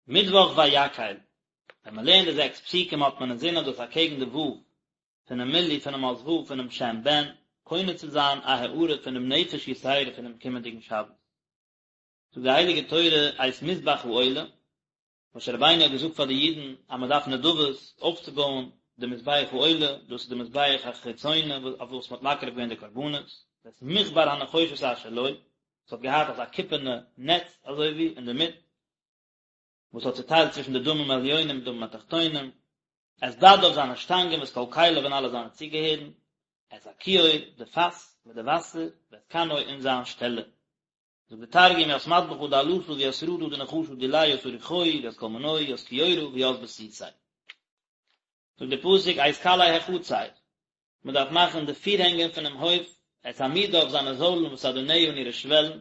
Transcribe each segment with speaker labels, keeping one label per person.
Speaker 1: מיטוואך ויקהל, ווען מען לערנט די זעקס פסוקים האט מען אינזין אז דאס אקעגן די ו' פונעם מילוי פונעם אות ו' פונעם שם בן, קונה צו זיין א הארה פונעם נפש יתירה פונעם קומענדיגן שבת. זאגט די הייליגע תורה את מזבח העולה, משה רבינו האט געזאגט פאר די אידן אז מען דארף נדבות אויפצובויען די מזבח העולה, דאס איז די מזבח החיצוני אויף וואס מען האט מקריב געווען די קרבנות, ואת מכבר הנחושת אשר לו, עס האט געהאט אזא קופערנע נעץ אזוי ווי אינדערמיט, וואס האט צוטיילט צווישן די דמים העליונים און דמים התחתונים, את בדיו זיינע שטאנגען ואת כל כליו און אלע זיינע צוגעהערן, את הכיור, די פאס מיט די וואסער, ואת כנו און זיין שטעלער. זאגט די תרגום ית מדבחא דעלתא וית רדא דנחשא דיליה ית אריחוהי וית כל מנוהי ית כיורא וית בסיסיה. זאגט די פסוק את קלעי החצר, מען דארף מאכן די פירהענגען פונעם הויף, את עמודיו זיינע זוילן ואת אדניה און אירע שוועלן,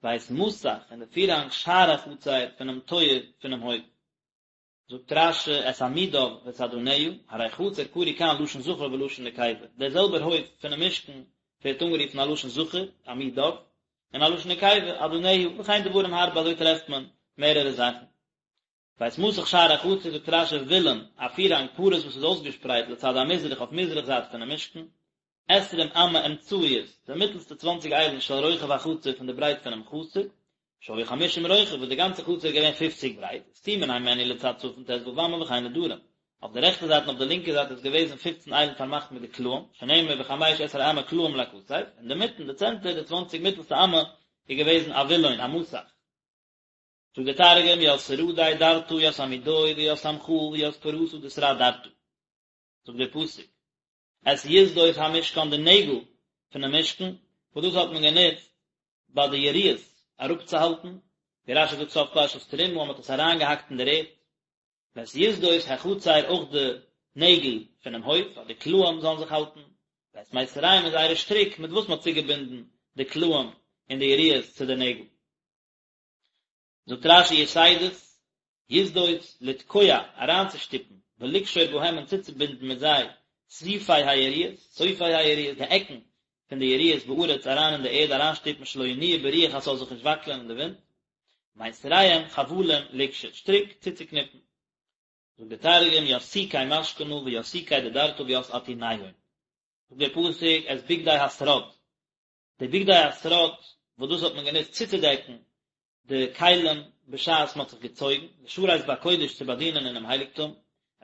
Speaker 1: ואת מסך און די פירהאנג שער החצר פונעם טויער פונעם הויף. זאגט רש"י את עמודיו ואת אדניה, הרי חצר קרוי כאן לשון זכר ולשון נקבה, דער זעלבער הויף פונעם משכן ווערט אנגערופן א לשון זכר, עמודיו, און א לשון נקבה, אדניה, וכן דברים הרבה אזוי טרעפט מען מערערע זאכן. ואת מסך שער החצר זאגט רש"י וילון, א פירהאנג פרוס וואס איז אויסגעשפרייט לצד המזרח אויף מזרח זייט פונעם משכן, עשרים אמה אמצעיות, די מיטלסטע צוואנציג איילן של רוחב החצר פון די ברייט פונעם חצר, שהיה חמישים רוחב וואס די גאנצע חצר איז געווען פופציג ברייט, וסתומין הימנו לצד צפון ט"ו אמה וכן לדרום, אויף די רעכטע זייט און אויף די לינקע זייט איז געוועזן פופצן איילן פארמאכט מיט די קלעים, שנאמר וחמש עשרה אמה קלעים לכתף, אינדערמיטן די צענטער די צוואנציג מיטלסטע אמה איז געוועזן א וילון, א מסך. זאגט דער תרגום ית סרדי דרתא ית עמודוהי וית סמכאה וית פרסא דשרד דרתא. זאגט דער פסוק את יתדות המשכן די נעגל פונעם משכן, וואס דאס האט מען גענוצט ביי די יריעות אראפצוהאלטן, ווי רש"י זאגט סוף פרשת תרומה אז מען האט עס אריינגעהאקט אין דער ערד, ואת יתדות החצר אויך די נעגל פונעם הויף אז די קלעים זאלן זיך האלטן, ואת מיתריהם און זייערע שטריק מיט וואס מען האט צוגעבינדן די קלעים און די יריעות צו די נעגל. זאגט רש"י יתדות, יתדות, לתקוע, אריינצושטופן, ולקשור בהם און צוצובינדן מיט זיי, סופי היריעות, סופי היריעות, די עקן פון די יריעות בארץ אריין אין די ערד אריינשטופן שלא ינועו ברוח אז ס'זאל זיך נישט וואקלען אין די ווינט, מיתריהם חבלים לקשור, שטריק צוצוקניפן. זאגט דער תרגום, ית סוקי משכנא וית סוקי דדרתא וית אתוניהון. זאגט דער פסוק, את בגדי השרד, די בגדי השרד וואס דאס האט מען גענוצט צוצודעקן די כלים בשעת מען האט זיך געצויגן, לשרת בקודש צו באדינען אינעם הייליגטום,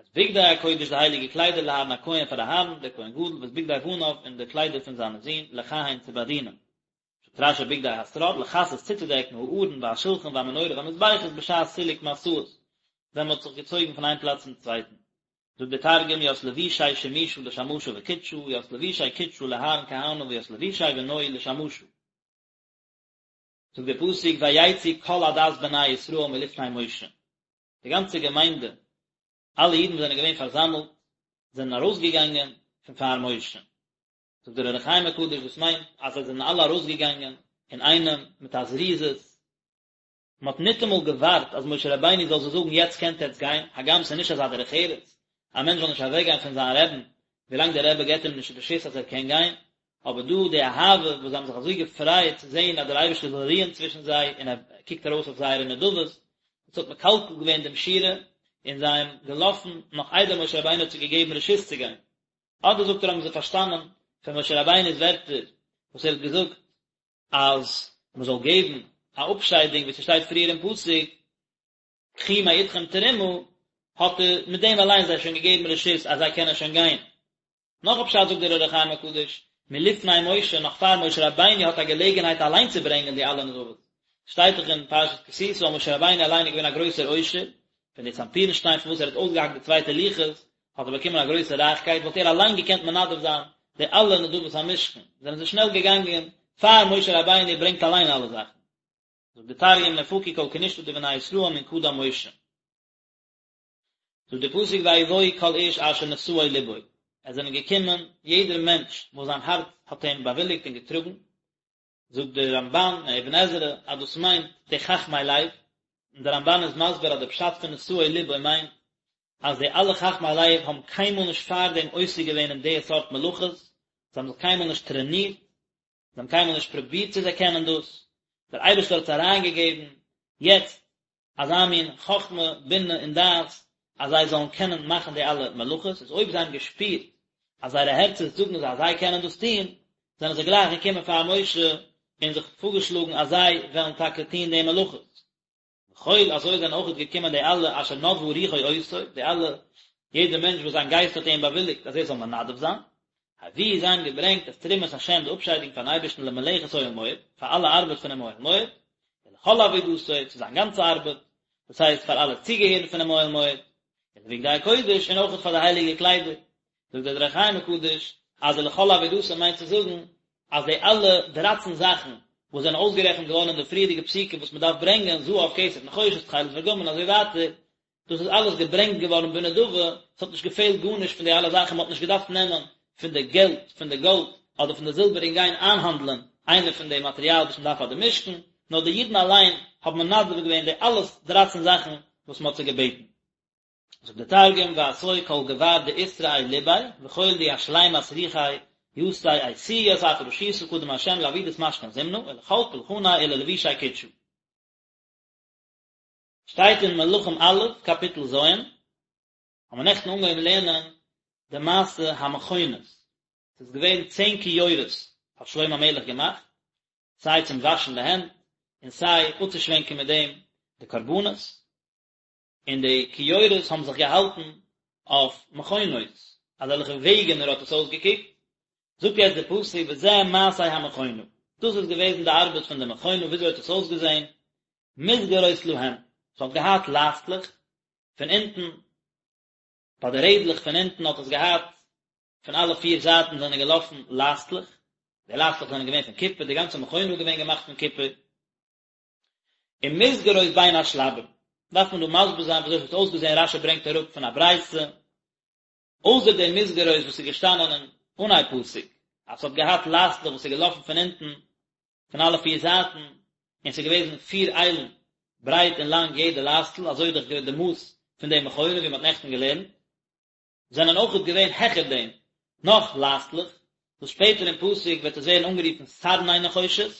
Speaker 1: את בגדי הקודש די הייליגע קליידער לאהרן הכהן פאר אהרן דער כהן גדול ואת בגדי בניו און די קליידער פון זיינע זין לכהן צו באדינען. זאגט רש"י בגדי השרד לכסות צוצודעקן הארון והשולחן והמנורה והמזבחות בשעת סילוק משאות ווען מען האט זיך געצויגן פון איין פלאץ צום צווייטן. זאגט דער תרגום ית לבושי שימושא לשמשא וקודשא ית לבושי קודשא לאהרן כהנא וית לבושי בנוהי לשמשא. זאגט דער פסוק ויצאו כל עדת בני ישראל מלפני משה, די גאנצע געמיינדע, אלע אידן וואס זענען געווען פארזאמלט, זענען ארויסגעגאנגען פון פאר משה. זאגט דער אור החיים הקדוש דאס מיינט אז זיי זענען אלע ארויסגעגאנגען אינאיינעם מיט א זריזות, מען האט ניטאמאל געווארט אז משה רבינו זאל זיי זאגן יעצט קענט עטץ גיין, הגם ס'איז נישט אזא דרך ארץ, א מענטש זאל נישט אוועק גיין פון זיין רעבן ווילאנג דער רבי געבט אים נישט רשות אז ער קען גיין, אבער דא די אהבה וואס זיי האבן זיך אזוי געפרייט צו זען אז דער אייבערשטער זאל רוען צווישן זיי און ער קוקט ארויס אויף זייערע נדבות, דאס האט מקלקל געווען דעם שורה און זיי האבן געלאפן נאך איידער משה רבינו האט זיי געגעבן רשות צו גיין. אדער זאגט ער האבן זיי פארשטאנען פון משה רבינו'ס ווערטער וואס ער האט געזאגט אז מען זאל געבן א אפשיידונג ווי ס'שטייט פריער אין פסוק קחו מאתכם תרומה, האט ער מיט דעם אליין זיי שוין געגעבן רשות אז זיי קענען שוין גיין. נאך א פשט זאגט דער אור החיים הקדוש, מלפני משה, נאך פאר משה רבינו האט א געלעגנהייט אליין צו ברענגען די אלע נדבות. שטייט דאך אין פרשת כי תשא אז משה רבינו אליין איז געווען א גרויסער עושר, פון די סנפירן שטיין פון וואס ער האט אויסגעהאקט די צווייטע לוחות, האט ער באקומען א גרויסע רייכקייט, וואלט ער אליין געקענט מנדב זיין די אלע נדבות המשכן, זענען זיי שנעל געגאנגען פאר משה רבינו ברענגט אליין אלע זאכן. זאגט די תרגום נפקו כל כנישתא דבני ישראל מן קדם משה. זאגט די פסוק ויבואו כל איש אשר נשאו לבו, עס זענען געקומען יעדער מענטש וואס זיין הארץ האט אים באוויליגט און געטראגן, זאגט דער רמבן און אבן עזרא אז דאס מיינט די חכמי לב, און דער רמבן איז מסביר אז די פשט פון נשאו לבו מיינט אז די אלע חכמי לב האבן קיינמאל נישט פארדעם עוסק געווען אין די סארט מלאכות, זיי האבן זיך קיינמאל נישט טרענירט, זיי האבן קיינמאל נישט פרובירט צו זיי קענען דאס, דער אייבערשטער האט עס אריינגעגעבן יעצט. אזא מין חכמה, בינה און דעת אז זיי זאלן קענען מאכן די אלע מלאכות, איז אויב זיי האבן געשפירט אז זייערע הערצער זאגן זיי אז זיי קענען דאס טון, זענען זיי גלייך געקומען פאר משה און זיך פארגעשלאגן אז זיי וועלן טאקע טון די מלאכות. וכל, אזוי זענען אויכעט געקומען די אלע אשר נדבה רוחו אותו, די אלע, יעדער מענטש וואס זיין גייסט האט איהם באוויליגט אז ער זאל מנדב זיין, הביאו זיי האבן געברענגט את תרומת השם די אפשיידונג פארן אייבערשטן למלאכת אוהל מועד, פאר אלע ארבעט פונעם אוהל מועד, ולכל עבודתו, צו זיין גאנצע ארבעט, דאס הייסט פאר אלע צוגעהערן פונעם אוהל מועד, ולבגדי הקודש, און אויכעט פאר די הייליגע קליידער. זאגט דער אור החיים הקדוש, אז ולכל עבודתו מיינט צו זאגן, אז די אלע דרייצן זאכן וואס זענען אויסגערעכנט געווארן אין די פריערדיגע פסוקים וואס מען דארף ברענגען, זהב, כסף, נחושת, תכלת וארגמן און אזוי ווייטער, דאס איז אלעס געברענגט געווארן בנדבה, עס האט נישט געפעלט גארנישט פון די אלע זאכן, מען האט נישט געדארפט נעמען פון די געלט, פון די גאלד, אדער פון די זילבער און גיין איינהאנדלען איינע פון די מאטריאל וואס מען דארף פאר די משכן, נאר די אידן אליין האבן מנדב געווען די אלע דרייצן זאכן וואס מען האט זיי געבעטן. זאגט דער תרגום ואתו כל גבר דאתרעי לביה וכל די אשלימת רוחיה יתיה איתיהו ית אפרשותא קדם ה' לעבידת משכן זמנא ולכל פולחניה וללבושי קודשא. שטייט אין מלכים א', קאפיטל ז', האבן מיר נעכטן אנגעהויבן לערנען די מעשה המכונות, ס'איז געווען צען כיורות האט שלמה המלך געמאכט, סיי צום וואשן די הענט, און סיי אפצושווענקען מיט דעם די קרבנות, און די כיורות האבן זיך געהאלטן אויף מכונות, אזעלכע וועגענער האט עס אויסגעקוקט, זאגט יעצט דער פסוק וזה מעשה המכונה, דאס איז געוועזן די ארבעט פון די מכונה, וויאזוי האט עס אויסגעזען, מסגרות להם, ס'האט געהאט לייסטלעך פון אונטן, ביי די רעדלעך פון אונטן האט עס געהאט, פון אלע פיר זייטן זענען געלאפן לייסטלעך, די לייסטלעך זענען געווען פון קופער, די גאנצע מכונה איז געווען געמאכט פון קופער, ומסגרות בין השלבים, דארף מען דא מסביר זיין וויאזוי עס האט אויסגעזען, רש"י ברענגט אראפ פון א ברייתא, אויסער די מסגרות וואס איז געשטאנען אין אנהייב פסוק, אז ס'האט געהאט לייסטלעך וואס איז געלאפן פון אונטן, פון אלע פיר זייטן, און ס'איז געוועזן פיר איילן ברייט און לאנג יעדע לייסטל, אזוי איז דאך געווען די מאס פון די מכונה ווי מ'האט נעכטן געלערנט. זענען אויכעט געווען העכער דעם נאך לייסטלעך, וואס שפעטער אין פסוק וועט עס ווערן אנגערופן סרני נחושת,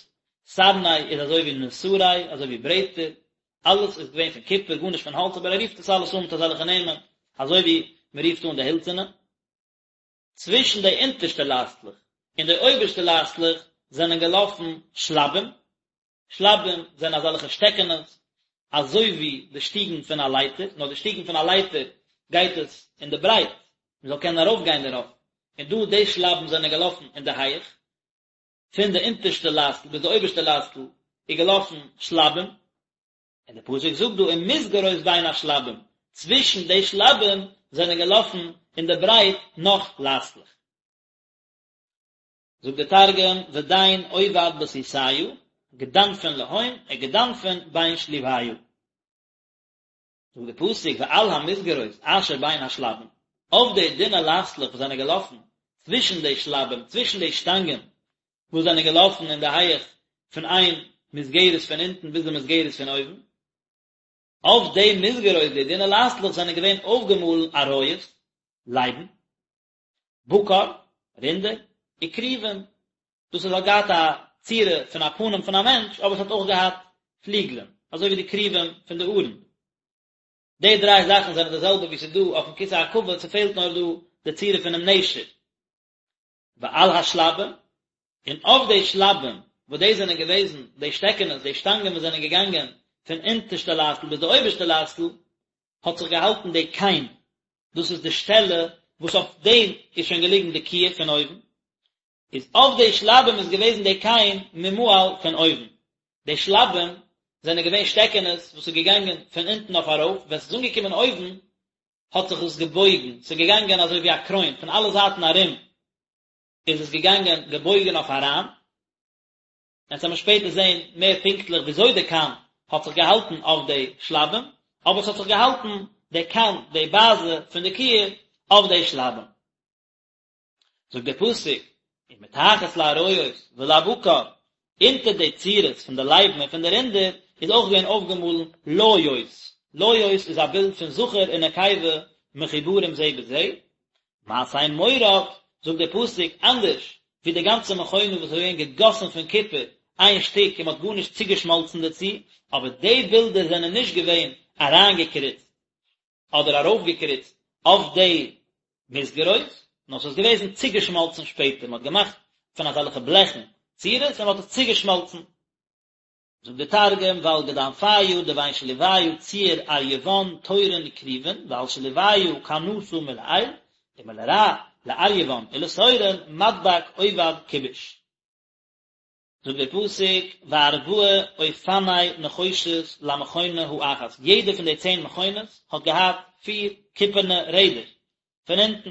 Speaker 1: סרני איז אזוי ווי נסרי, אזוי ווי ברעטער, אלעס איז געווען פון קופער, גארנישט פון האלץ, אבער ער רופט עס אלעס אן מיט אזעלכע נעמען, אזוי ווי מען רופט אן די הילצערנע. צווישן די אונטערשטע לייסטלעך און די אויבערשטע לייסטלעך זענען געלאפן שלבים, שלבים זענען אזעלכע שטעקענעס, אזוי ווי די שטיגן פון א לייטער, נאר די שטיגן פון א לייטער גייט עס אין די ברייט, מען זאל קענען ארויפגיין דערויף, און דא די שלבים זענען געלאפן אין די הייעך, פון די אונטערשטע לייסטל ביז די אויבערשטע לייסטל איז געלאפן שלבים, און די פסוק זאגט דא ומסגרות בין השלבים, צווישן די שלבים זענען געלאפן אין די ברייט נאך לייסטלעך. זאגט דער תרגום, ודין עובד בתותיא, גדנפין להון וגדנפין בין שלוביא. זאגט דער פסוק ועל המסגרות אשר בין השלבים, אויף די דינע לייסטלעך וואס זענען געלאפן צווישן די שלבים, צווישן די שטאנגען וואס זענען געלאפן אין די הייעך פון איין מסגרת פון אונטן ביז די מסגרת פון אויבן, אויף די מסגרות, די דינע לייסטלעך זענען געווען אויפגעמאלן אריות, לייבן, בקר, רינדער, וכרובים, דאס איז האט געהאט א צורה פון א פנים פון א מענטש, אבער עס האט אויך געהאט פליגלען, אזוי ווי די כרובים פון די ארון. די דריי זאכן זענען די זעלבע ווי ס'איז דא אויפן כסא הכבוד, ס'פעלט נאר דא די צורה פונעם נשר. ועל השלבים, און אויף די שלבים, וואס דאס זענען געוועזן די שטעקענעס, די שטאנגען וואס זענען געגאנגען פון אונטערשטע לייסטל ביז די אויבערשטע לייסטל, האט זיך געהאלטן די כן, דאס איז די שטעלע וואס אויף דעם איז שוין געליגן די כיור פון אויבן, איז אויף די שלבים איז געוועזן די כן ממעל פון אויבן, די שלבים זענען געווען שטעקענעס וואס איז געגאנגען פון אונטן אויף ארויף, ווען ס'איז אנגעקומען אויבן האט זיך עס געבויגן, ס'איז געגאנגען אזוי ווי א קרוין, פון אלע זייטן ארום איז עס געגאנגען געבויגן אויף אריין, אונז וועלן שפעטער זען מער פונקטליך וויאזוי די כן האט זיך געהאלטן אויף די שלבים, אבער עס האט זיך געהאלטן די כן, די באזע פון די כיור, אויף די שלבים. זאגט דער פסוק, ומתחת לאריות ולבקר, אונטער די צורות פון די לייבן און פון די רינדער איז אויך געווען אויפגעמאלן ליות, ליות איז א בילד פון זכר און נקבה מחוברים זה בזה, מעשה מורד, זאגט דער פסוק, אנדערש ווי די גאנצע מכונה וואס איז געווען געגאסן פון קופער. איין שטיק און מען האט גארנישט צוגעשמאלצן דערצו, אבער די בילדער זענען נישט געווען אריינגעקריצט אדער ארויפגעקריצט אויף די מסגרות, נאר ס'איז געוועזן צוגעשמאלצן שפעטער, מען האט געמאכט פון אזעלכע בלעכן צורות און מען האט עס צוגעשמאלצן. זאגט דער תרגום, ועל גדנפיא דבין שליביא ציור אריון תורין וכרובין, ועל שליביא כנתא מלעיל, ומלרע לאריון ולתורין מדבק עובד כיבוש. זאגט דער פסוק, וארבעה אופני נחושת למכונה האחת, יעדע פון די צען מכונות האט געהאט פיר קופערנע רעדער פון אונטן,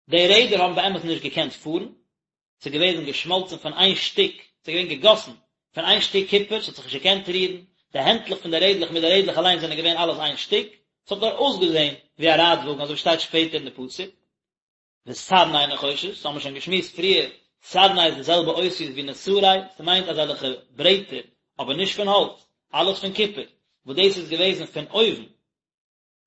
Speaker 1: די רעדער האבן באמת נישט געקענט פארן, ס'איז געוועזן געשמאלצן פון איין שטיק, ס'איז געווען געגאסן פון איין שטיק קופער, ס'האט זיך נישט געקענט רירן, די הענטלעך פון די רעדלעך מיט די רעדלעך אליין זענען געווען אלעס איין שטיק, ס'האט נאר אויסגעזען ווי א רייטוואגן, אזוי ווי שטייט שפעטער אין די פסוק. וסרני נחושת, האבן מיר שוין געשמועסט פריער, סרני איז די זעלבע אותיות ווי נסרי, ס'מיינט אזעלכע ברעטער, אבער נישט פון האלץ, אלעס פון קופער, וואס דאס איז געוועזן פון אויבן.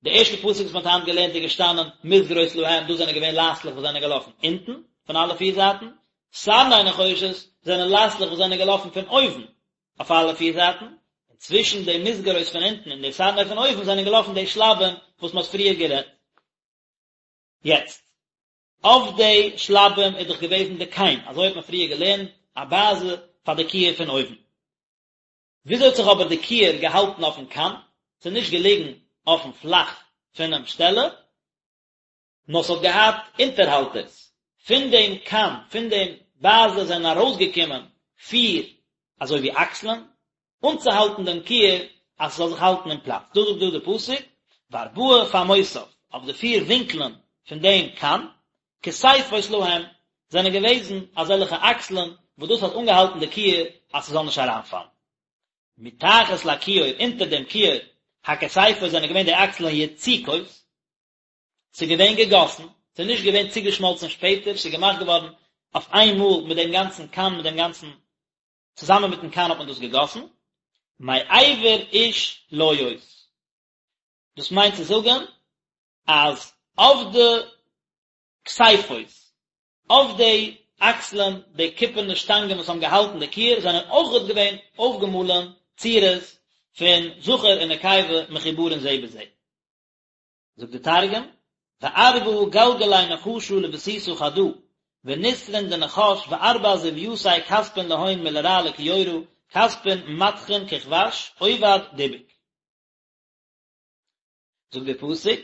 Speaker 1: די ערשטע פסוק וואס מ'האט היינט געלערנט איז געשטאנען מסגרות להם, דאס זענען געווען לייסטלעך וואס זענען געלאפן אונטן, פון אלע פיר זייטן, סרני נחושת זענען לייסטלעך וואס זענען געלאפן פון אויבן, אויף אלע פיר זייטן, און צווישן די מסגרות פון אונטן און די סרני פון אויבן זענען געלאפן די שלבים וואס מ'האט פריער גערעדט. יעצט, אויף די שלבים איז דאך געוועזן די כן, אזוי האט מען פריער געלערנט, א באזע פאר די כיור פון אויבן. וויאזוי האט זיך אבער די כיור געהאלטן אויפן כן? ס'איז נישט געליגן אויפן פלאך פונעם שטעלע, נאר ס'האט געהאט אונטערהאלטערס. פון דעם כן, פון דעם באזע זענען ארויסגעקומען פיר אזוי ווי אקסלען, אנצוהאלטן דעם כיור אז ס'זאל זיך האלטן אין פלאץ. דאס זאגט דא די פסוק, וארבעה פעמותיו, אויף די פיר ווינקלען פון דעם כן, כתפות להם, זענען געוועזן אזעלכע אקסלען וואס דאס האט אנגעהאלטן די כיור אז ס'זאל נישט אריינפאלן. מתחת לכיור, אונטער דעם כיור, הכתפות זענען געווען די אקסלען יצוקות, ס'איז געווען געגאסן, ס'איז נישט געווען צוגעשמאלצן שפעטער, ס'איז געמאכט געווארן אויף איין מאל מיט דעם גאנצן כן, מיט דעם גאנצן, צוזאמען מיטן כן האט מען דאס געגאסן, מעבר איש ליות. דאס מיינט צו זאגן אז אויף די כתפות, אויף די אקסלען, די קופערנע שטאנגען וואס האבן געהאלטן די כיור זענען אויכעט געווען אויפגעמאלען צורות פון זכר און נקבה מחוברין זה בזה. זאגט די תרגום, וארבעא גלגלי נחשא לבסיסא חדא, ונסרין דנחש וארבע זויתיה כתפין להון מלרע לכיורא, כתפין מדכין ככבש, עובד דיבוק. זאגט דער פסוק,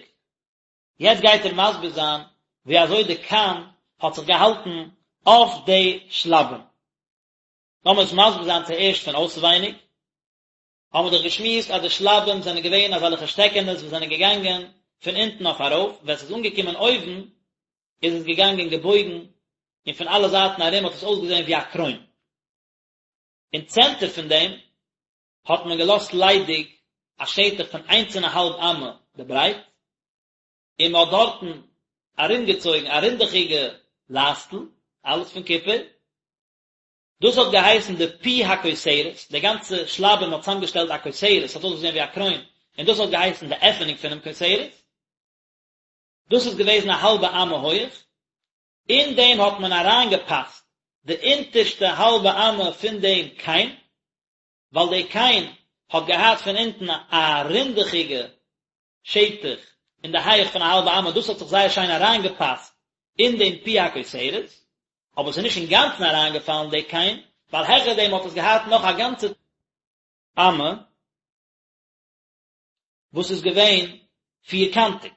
Speaker 1: יעצט גייט ער מסביר זיין ווי אזוי די כן האט זיך געהאלטן אויף די שלבים. לאמיר עס מסביר זיין צוערשט פון אויסווייניג. האבן מיר דאך געשמועסט אז די שלבים זענען געווען אזעלכע שטעקענעס וואס זענען געגאנגען פון אונטן אויף ארויף, ווען ס'איז אנגעקומען אויבן איז עס געגאנגען געבויגן און פון אלע זייטן ארום האט עס אויסגעזען ווי א קרוין. אין צענטער פון דעם האט מען געלאזט ליידיג א שטח פון איינס און א האלב אמה די ברייט, און מען האט דארטן ארומגעצויגן א רינדעכיגע לייסטל, אלעס פון קופער, דאס האט געהייסן די פי הכותרת, די גאנצע שלבים האט צוזאמגעשטעלט א כותרת, ס'האט אויסגעזען ווי א קרוין, און דאס האט געהייסן די עפענונג פונעם כותרת, דאס איז געוועזן א האלבע אמה הויעך, אין דעם האט מען אריינגעפאסט די אונטערשטע האלבע אמה פון דעם כן, ווייל די כן האט געהאט פון אונטן א רינדעכיגע שטח אין די הייעך פון א האלבע אמה, דאס האט זיך זייער שיין אריינגעפאסט אין דעם פי הכותרת, אבער עס איז נישט אינגאנצן אריינגעפאלן די כן, ווייל העכער דעם האט עס געהאט נאך א גאנצע אמה וואס איז געווען פירקאנטיג,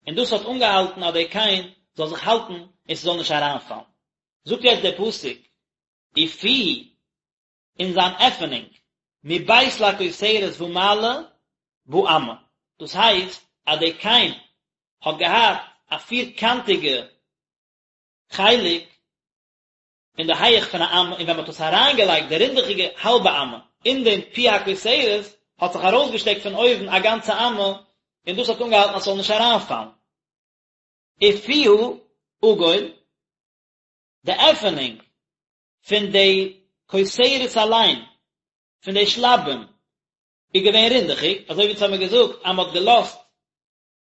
Speaker 1: און דאס האט אנגעהאלטן אז די כן זאל זיך האלטן און ס'זאל נישט אריינפאלן. זאגט יעצט דער פסוק, ופיהו און זיין עפענונג, מבית לכותרת ומעלה באמה, דאס הייסט אז די כן האט געהאט א פירקאנטיגע חלק אין די הייעך פון א אמה, און ווען מען האט עס אריינגעלייגט די רינדעכיגע האלבע אמה אין דעם פי הכותרת, האט זיך ארויסגעשטעקט פון אויבן א גאנצע אמה, און דאס האט אנגעהאלטן אז ס'זאל נישט אריינפאלן. ופיה עגול, די עפענונג פון די כותרת אליין, פון די שלבים, איז געווען רינדעכיג, אזוי ווי אונז האמיר געזאגט אז מען האט געלאזט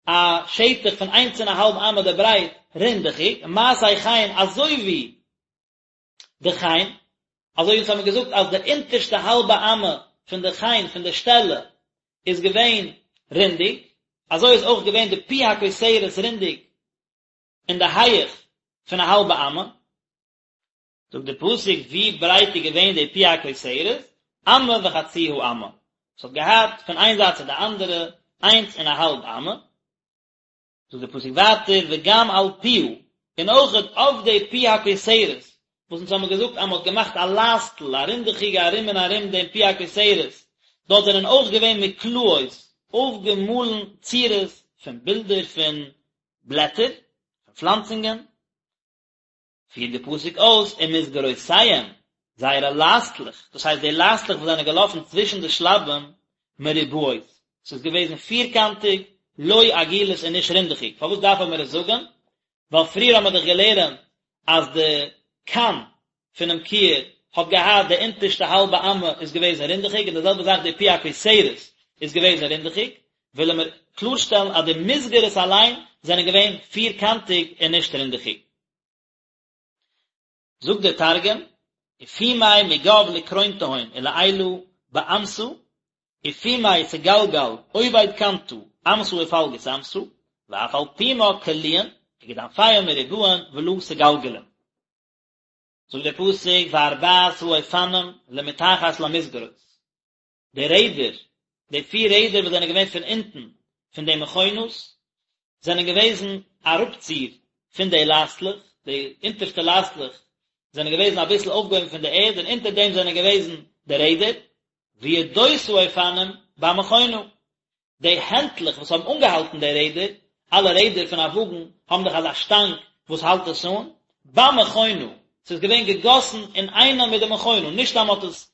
Speaker 1: א שטח פון איינס און א האלב אמה די ברייט רינדעכיג, מעשה כן אזוי ווי די כן. אזוי ווי אונז האבן געזאגט אז די אונטערשטע האלבע אמה פון די חן פון די שטעלע איז געווען רינדיג, אזוי איז אויך געווען די פי הכותרת רינדיג אין די הייעך פון א האלבע אמה. זאגט די פסוק ווי ברייט איז געווען די פי הכותרת, אמה וחצי האמה, עס האט געהאט פון איין זייט צו די אנדערע איינס און א האלב אמה. זאגט דער פסוק ווייטער וגם על פיה, און אויכעט אויף די פי הכותרת, וואס אונז האבן געזאגט אז מען האט געמאכט א לייסטל, א רינדעכיגע ארום און ארום דעם פי הכותרת, דארט זענען אויך געווען מקלעות, אויפגעמאלן צורות פון בילדער פון בלעטער, פון פלאנצונגען. פירט די פסוק אויס ומסגרותיהם, זייערע לייסטלעך, דאס הייסט די לייסטלעך וואס זענען געלאפן צווישן די שלבים, מרובעות, ס'איז געוועזן פירקאנטיג, לא עגולות און נישט רינדעכיג, פארוואס דארף מען עס זאגן? ווייל פריער האבן מיר דאך געלערנט אז די קן פונעם כיור האט געהאט די אונטערשטע האלבע אמה איז געוועזן רינדעכיג און די זעלבע זאך די פי הכותרת איז געוועזן רינדעכיג, ווילן מיר קלארשטעלן אז די מסגרת אליין זענען געווען פירקאנטיג און נישט רינדעכיג. זאגט דער תרגום, ופומי מגו לקרונתהון ולעילא באמתא, ופומי סגלגל עובד קנתא אמתא ופלגות אמתא, ואף על פומה קליעין, וגדנפיהון מרובעין ולא סגלגלין. זאגט דער פסוק וארבעת האופנים למתחת למסגרות, די רעדער, די פיר רעדער וואס זענען געווען פון אונטן פון די מכונות, זענען געוועזן אראפציר פון די לייסטלעך, די אונטערשטע לייסטלעך זענען געוועזן אביסל אויפגעהויבן פון די ערד און אונטער דעם זענען געוועזן די רעדער, וידות האופנים במכונה, די הענטלעך וואס האבן אנגעהאלטן די רעדער, אלע רעדער פון א וואגן האבן דאך אזא שטאנג וואס האלט עס אן, במכונה, ס'איז געווען געגאסן אינאיינעם מיט די מכונה, נישט אז מ'האט עס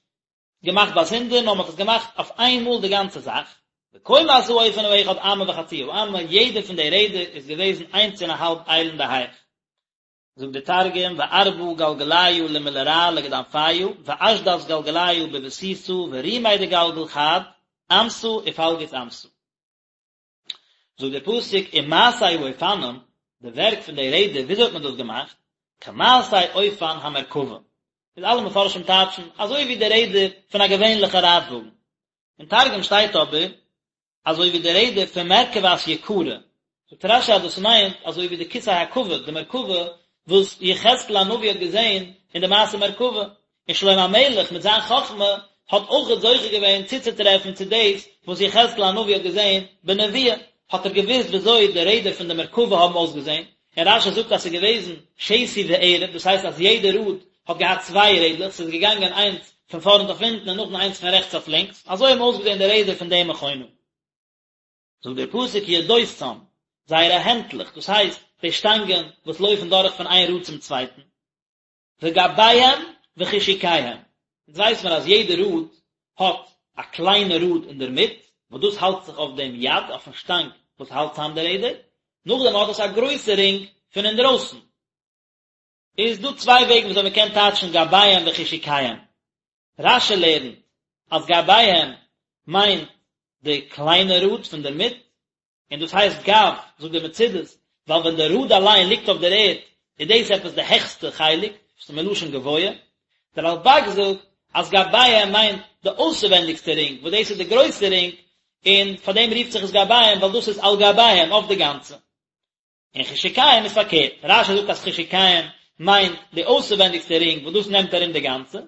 Speaker 1: געמאכט באזונדער, נאר מ'האט עס געמאכט אויף איין מאל די גאנצע זאך, וקומת האופן האחד אמה וחצי האמה, יעדע פון די רעדער איז געוועזן איינס און א האלב איילן אין די הייך. זאגט דער תרגום, וארבע גלגליא למלרע לגדנפיא, ואשדת גלגליא בבסיסא, ורומי דגלגל חד, אמתא ופלגות אמתא. זאגט דער פסוק ומעשה האופנים, די ווערק פון די רעדער, וויאזוי האט מען דאס געמאכט? כמעשה אופן המרכבה, איז אלע מפרשים טייטשן אזוי ווי די רעדער פון א געווענליכע רייטוואגן, אין תרגום שטייט אבער אזוי ווי די רעדער פון מרכבת יקרא, זאגט רש"י אז דאס מיינט אזוי ווי די כסא הכבוד, די מרכבה וואס יחזקאל הנביא האט געזען אין די מעשה מרכבה, און שלמה המלך מיט זיין חכמה האט אויכעט זוכה געווען צוצוטרעפן צו דאס וואס יחזקאל הנביא האט געזען בנביאה, האט ער געוואוסט וויאזוי די רעדער פון די מרכבה האבן אויסגעזען, און רש"י זאגט אז ס'איז געוועזן שתי וערב, דאס הייסט אז יעדע ראד האט געהאט צוויי רעדלעך, ס'איז געגאנגען איינס פון פארנט אויף הינטן און נאכדעם איינס פון רעכטס אויף לינקס, אזוי האבן אויסגעזען די רעדער פון די מכונה. זאגט דער פסוק ידותם, זייערע הענטלעך, דאס הייסט די שטאנגען וואס לויפן דורך פון איין ראד צום צווייטן, וגביהם וחשוקיהם, אונז ווייס מיר אז יעדע ראד האט א קליינע ראד אינדערמיט, וואס דאס האלט זיך אויף דעם יד, אויפן שטאנג וואס האלט צאם די רעדער, נאכדעם האט עס א גרויסע רינג פון אינדרויסן. איז דא צוויי וועגן וויאזוי מען קען טייטשן גביהם וחשוקיהם. רש"י לערנט אז גביהם מיינט די קליינע ראד פון דערמיט, און דאס הייסט גב, זאגט דער מצודות, ווייל ווען די ראד אליין ליגט אויף דער ערד, איז דאס עפעס די העכסטע חלק, וואס איז מלשון גבוה. דער רלב"ג זאגט אז גביהם מיינט די אויסערווענדיגסטע רינג, וואס דאס איז די גרויסע רינג, און פאר דעם רופט זיך עס גביהם, ווייל דאס איז על גביהם, אויף די גאנצע. און חשוקיהם איז פארקערט, רש"י זאגט אז חשוקיהם מיינט די אויסערווענדיגסטע רינג וואס דאס נעמט ארום די גאנצע,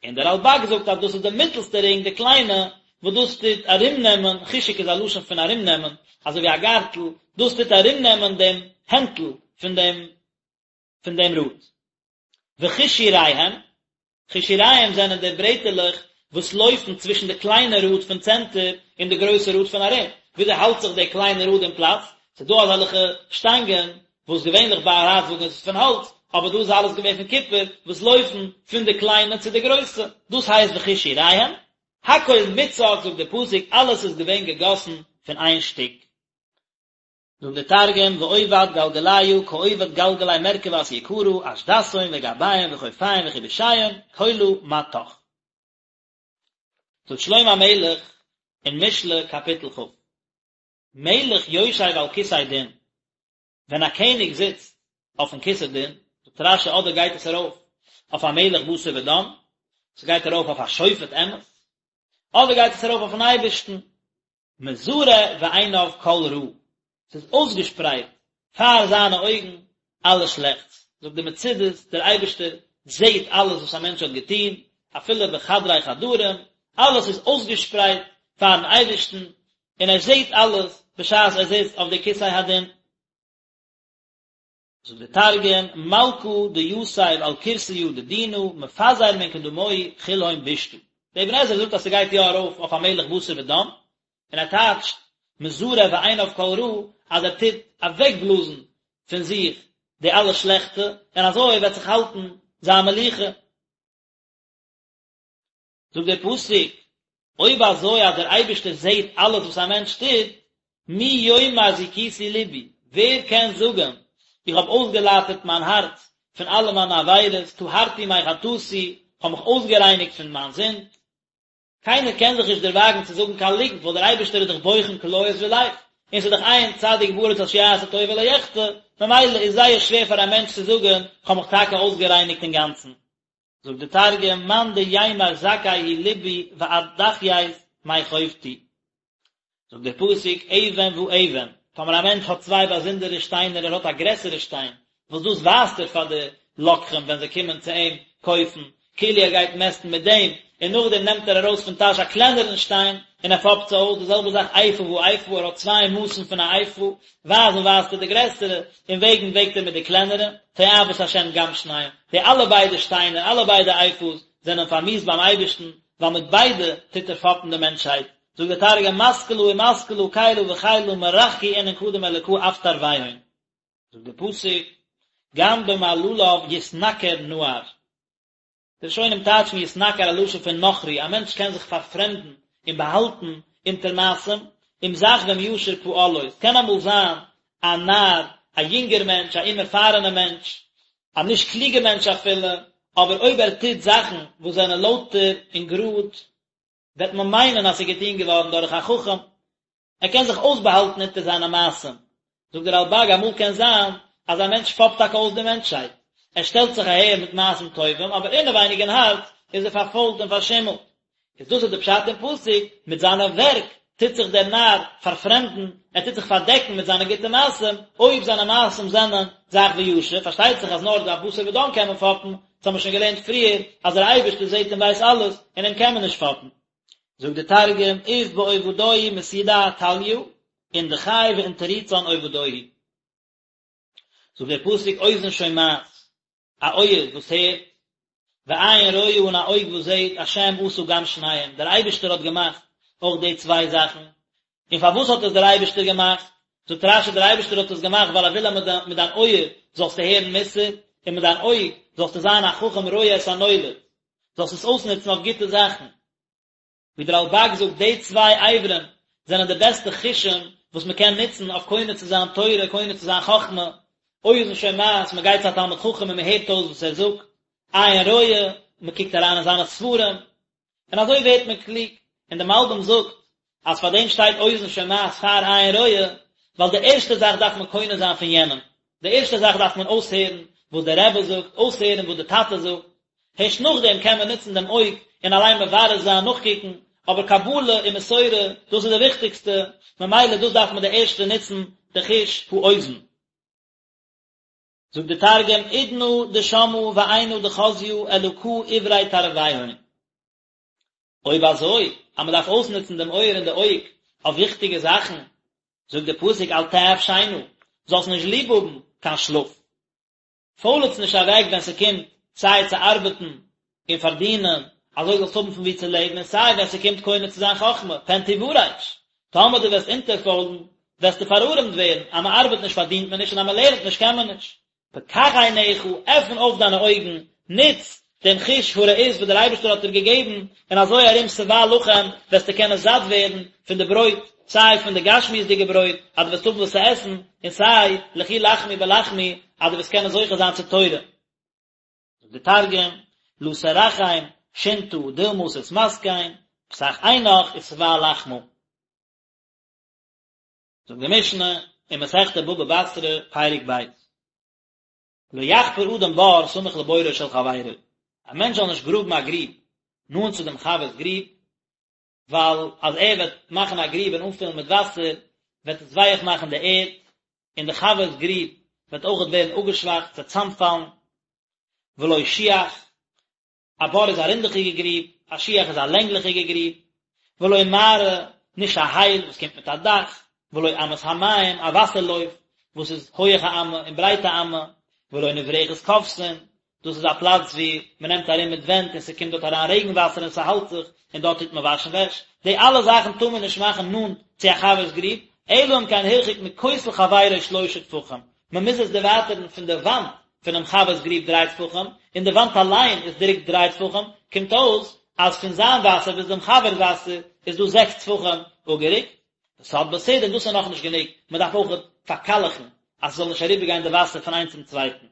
Speaker 1: און דער רלב"ג זאגט אז דאס איז די מיטלסטע רינג די קליינע וואס דאס טוט ארומנעמען, חשוק איז א לשון פון ארומנעמען, אזוי ווי א גארטל, דאס טוט ארומנעמען דעם הענטל פון דעם פון דעם ראד. וחישוריהם, חישוריהם זענען די ברעטעלעך וואס לויפן צווישן די קליינע ראד פון צענטער און די גרויסע ראד פון ארום. וויאזוי האלט זיך די קליינע ראד אין פלאץ? ס'איז דא אזעלכע שטאנגען וואס געווענליך ביי א רייטוואגן איז עס פון האלץ, אבער דא איז אלעס געווען פון קופער, וואס לויפן פון די קליינע צו די גרויסע. דאס הייסט וחישוריהם. הכל מוצק זאגט די פסוק, אלעס איז געווען געגאסן פון איין שטיק. זאגט דער תרגום, ועובד גלגליא כעובד גלגלי מרכבת יקרא, אשדתהון וגביהון וחופיהון וחבושיהון, כלא מטך. זאגט שלמה המלך אין משלי קאפיטל כ, מלך יושב על כסא דין, ווען א קעניג זיצט אויפן כסא דין, זאגט רש"י אדער גייט עס ארויף אויף א מלך בשר ודם, ס'גייט ארויף אויף א שופט אמת, אדער גייט עס ארויף אויפן אייבערשטן, מזרה בעיניו כל רע, ס'איז אויסגעשפרייט פאר זיינע אויגן אלע שלעכטס, זאגט די מצודות, דער אייבערשטער זעט אלעס וואס א מענטש האט געטון, אפילו בחדרי חדרים, אלעס איז אויסגעשפרייט פארן אייבערשטן, און ער זעט אלעס בשעת ער זיצט אויף די כסא הדין. זאגט דער תרגום, מלכא דיתיב על כורסיא דדינא, מפזר מן קדמוהי כלהון בישתא. דער אבן עזרא זאגט אז ס'גייט יא ארויף אויף א מלך בשר ודם, און ער טייטשט מזרה בעיניו כל רע אז ער טוט אוועקבלאזן פון זיך די אלע שלעכטע, און אזוי וועט זיך האלטן זיין מלוכה. זאגט דער פסוק, אויב אזוי אז דער אייבערשטער זעט אלעס וואס א מענטש טוט, מי יאמר זכיתי לבי, ווער קען זאגן איך האב אויסגעלייטערט מיין הארץ פון אלע מיינע עבירות, טהרתי מחטאתי, איך האב מיך אויסגערייניגט פון מיין זינד. קיינער קען זיך נישט דערוואגן צו זאגן קיין ליגנט, ווייל דער אייבערשטער איז דאך בוחן כליות ולב, און ס'איז דאך אין צדיק בארץ אשר יעשה טוב ולא יחטא, ממילא איז זייער שווער פאר א מענטש צו זאגן, איך האב מיך טאקע אויסגערייניגט אינגאנצן. זאגט די תרגום, מאן דיימר זכי הוא לבי ואדכיית מחובתי. זאגט דער פסוק, אבן ואבן, טאמער א מענטש האט צוויי באזונדערע שטיינער, ער האט א גרעסערע שטיין, וואס דאס ווייזט ער פאר די לוקחים ווען זיי קומען צו אים קויפן, כאילו ער גייט מעסטן מיט דעם, און נאכדעם נעמט ער ארויס פון טאש א קלענערן שטיין, און ער פאפט זיי אויס, די זעלבע זאך איפה ואיפה, ער האט צוויי מאסן פון א איפה, ווייזן ווייזט ער די גרעסערע, און וועגן וועגט ער מיט די קלענערע, תועבת השם גם שניהם, די אלע ביידע שטיינער, אלע ביידע איפות, זענען פארמיאוסט ביים אייבערשטן, ווייל מיט ביידע טוט ער פאפן די מענטשהייט. זאגט דער תרגום מתקלא ומתקלא כילא וכילא מרחקי אינון קדם אלקא אף תרוויהון. זאגט דער פסוק, גם במעלליו יתנכר נער. די ראשונים טייטשן יתנכר א לשון פון נכרי, א מענטש קען זיך פארפרעמדן און באהאלטן אונטער מעשים, אם זך ואם ישר פעלו, עס קען אמאל זיין א נער, א יונגער מענטש, א אומערפארענער מענטש, א נישט קלוגער מענטש אפילו, אבער אויב ער טוט זאכן וואס זענען לויטער און גראד, וועט מען מיינען אז ס'איז געטון געווארן דורך א חכם, ער קען זיך אויסבאהאלטן אונטער זיינע מעשים. זאגט דער רלב"ג, אמאל קען זיין אז א מענטש פאפט טאקע אויס די מענטשהייט, ער שטעלט זיך אהער מיט מעשים טובים, אבער אינעווייניג אין הארץ איז ער פארפוילט און פארשימלט. איז דאס איז די פשט אין פסוק, מיט זיינע ווערק טוט זיך דער נאר פארפרעמדן, ער טוט זיך פארדעקן מיט זיינע גוטע מעשים, אויב זיינע מעשים זענען זך וישר, פארשטייט זיך אז נאר א בשר ודם קען מען פאפן, דאס האבן מיר שוין געלערנט פריער, אז דער אייבערשטער זעט און ווייסט אלעס, און אים קען מען נישט פאפן. זאגט דער תרגום, אוף בעובדוהי מתידע טליא, אין דכי ואין תריצן עובדוהי. זאגט דער פסוק אוזן שומעת, א אויער וואס הערט, ועין רואה און א אויג וואס זעט, השם עשה גם שניהם, דער אייבערשטער האט געמאכט אויך די צוויי זאכן, און פארוואס האט עס דער אייבערשטער געמאכט? זאגט רש"י דער אייבערשטער האט עס געמאכט ווייל ער וויל אז מיט דיין אויער זאלסטו הערן מוסר, און מיט דיין אויג זאלסטו זיין א חכם רואה את הנולד, זאלסט עס אויסנוצן אויף גוטע זאכן. ווי דער רלב"ג זאגט, די צוויי אברים זענען די בעסטע חושים וואס מען קען נוצן אויף קונה צו זיין תורה, קונה צו זיין חכמה, אוזן שומעת, מען גייט צו א תלמיד חכם און מען הערט אויס וואס ער זאגט, עין רואה, מען קוקט אריין אין זיינע ספרים, און אזוי ווערט מען קלוג, און דער מלבי"ם זאגט אז פאר דעם שטייט אוזן שומעת פאר עין רואה, ווייל די ערשטע זאך דארף מען קונה זיין פון יענעם, די ערשטע זאך דארף מען אויסהערן וואס דער רבי זאגט, אויסהערן וואס דער טאטע זאגט, הערשט נאכדעם קען מען נוצן דעם אויג און אליין מברר זיין, נאכקוקן, אבער קבלה און מסורה, דאס איז די וויכטיגסטע, ממילא דאס דארף מען די ערשטע נוצן, די חוש האוזן. זאגט די תרגום, אודנא דשמעא ועינא דחזיא אלקא אברי תרוויהון. אויב אזוי, אז מען דארף אויסנוצן דעם אויער און די אויג אויף וויכטיגע זאכן, זאגט דער פסוק אל תאהב שינה, זאלסט נישט ליב האבן קיין שלאף. פוילעץ נישט אוועק ווען ס'קומט סיי צו ארבעטן און פארדינען, אזוי זאלסט האבן פון וואו צו לעבן, און סיי ווען ס'קומט קונה צו זיין חכמה, פן תורש, טאמער דו וועסט אונטערפוילן, וועסטו פארארעמט ווערן, אז מען ארבעט נישט פארדינט מען נישט און אז מען לערנט נישט קען מען נישט. פקח עיניך, עפן אויף דיינע אויגן, נוץ דעם חוש הראיות וואס דער אייבערשטער האט דיר געגעבן, און אזוי ארום שבע לחם וועסטו קענען זאט ווערן פון די ברויט, סיי פון די גשמיות'דיגע ברויט, אז דו וועסט האבן וואס צו עסן, און סיי לכו לחמו בלחמי, אז דו וועסט קענען זוכה זיין צו תורה. זאגט דער תרגום, לא תרחם שינתא דלמא תתמסכן, פתח עינך ושבע לחמא. זאגט די משנה אין מסכת בבא בתרא פרק ב', לא יחפור אדם בור סמוך לבורו של חברו, א מענטש זאל נישט גראבן א גריב. נאנט צו דעם חבר'ס גריב, ווייל אז ער וועט מאכן א גריב און אנפילן מיט וואסער, וועט עס ווייעך מאכן די ערד, און די חבר'ס גריב וועט אויכעט ווערן אפגעשוואכט, ס'וועט צאמפאלן. ולא שיח, א בור איז א רינדעכיגע גריב, א שיח איז א לענגליכיגע גריב, ולא מערה, נישט א הייל וואס קומט מיט א דאך, ולא אמת המים, א וואסער לויף וואס איז הויעך א אמה און ברייט א אמה, ולא נברכת כובסין, דאס איז א פלאץ ווי מען נעמט ארום מיט ווענט און ס'קומט דארט אריין רעגן וואסער און ס'האלט זיך, און דארט טוט מען וואשן וועש, די אלע זאכן טאר מען נישט מאכן נאנט צו א חבר'ס גריב, אלא אם כן הרחיק מכותל חברו שלושה טפחים, מען מוז עס דערווייטערן פון די וואנט פונעם חבר'ס גריב דריי טפחים, און די וואנט אליין איז דיק דריי טפחים, קומט אויס אז פון זיין וואסער ביז דעם חבר'ס וואסער איז דא זעקס טפחים אפגערוקט. וסד בסיד און דאס איז נאכנישט גענוג, מען דארף אויך פארקאלעכן אז ס'זאל נישט אריבערגיין די וואסער פון איינס צום צווייטן.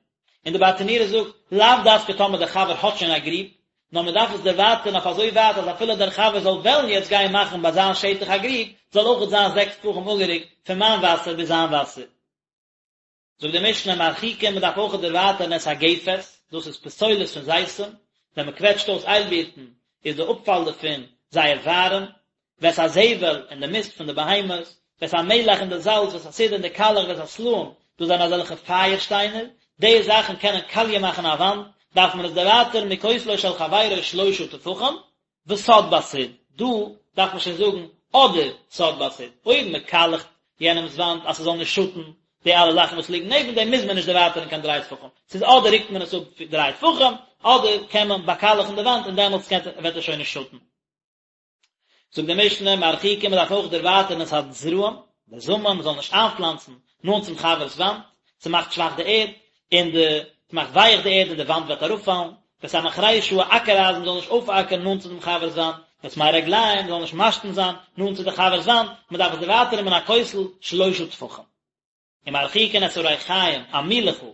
Speaker 1: און די ברטנורא זאגט, לאו דווקא טאמער דער חבר האט שוין א גריב, נאר מען דארף עס דערווייטערן אויף אזוי ווייט אז אפילו דער חבר זאל וועלן יעצט גיין מאכן ביי זיין שטח א גריב, זאל אויכעט זיין זעקס טפחים אפגערוקט פון מיין וואסער ביז זיין וואסער. זאגט די משנה מרחיקין מען דארף אויכעט דערווייטערן את הגפת, דאס איז פסולת פון זיתים, ווען מען קוועטשט אויס איילבירטן איז די אפפאל דערפון זייער ווארעם, ואת הזבל און די מיסט פון די בהמות, ואת המלח און די זאלץ, ואת הסיד און די קאלעך, ואת הסלעים, דאס זענען אזעלכע פייער שטיינער, די זאכן קענען קאליע מאכן א וואנט, דארף מען עס דערווייטערן מכותלו של חברו שלושה טפחים, וסד בסיד, דא דארף מען שוין זאגן אדער סד בסיד, אויב מען קאלעכט יענעמס וואנט אז ס'זאל נישט שאטן די אלע זאכן וואס ליגן נעבן דעם מוז מען נישט דערווייטערן קיין דריי טפחים, ס'איז אדער רוקט מען עס אפ דריי טפחים, אדער קען מען באקאלעכן די וואנט און דעמאלטס וועט עס שוין נישט שאטן. זאגט די משנה, מרחיקין מען דארף אויך דערווייטערן את הזרעים, די זאמען, מען זאל נישט איינפלאנצן נאנט צום חבר'ס וואנט, ס'מאכט שוואך די ערד, און די, ס'מאכט ווייעך די ערד און די וואנט וועט אראפפאלן, ואת המחרישה א אקער אייזן מען זאל נישט אויפאקערן נאנט צו דעם חבר'ס וואנט, ואת מי רגליים מען זאל נישט משתין זיין נאנט צו די חבר'ס וואנט, מען דארף עס דערווייטערן מן הכותל שלושה טפחים. ומרחיקין את הריחיים, א מילעכל,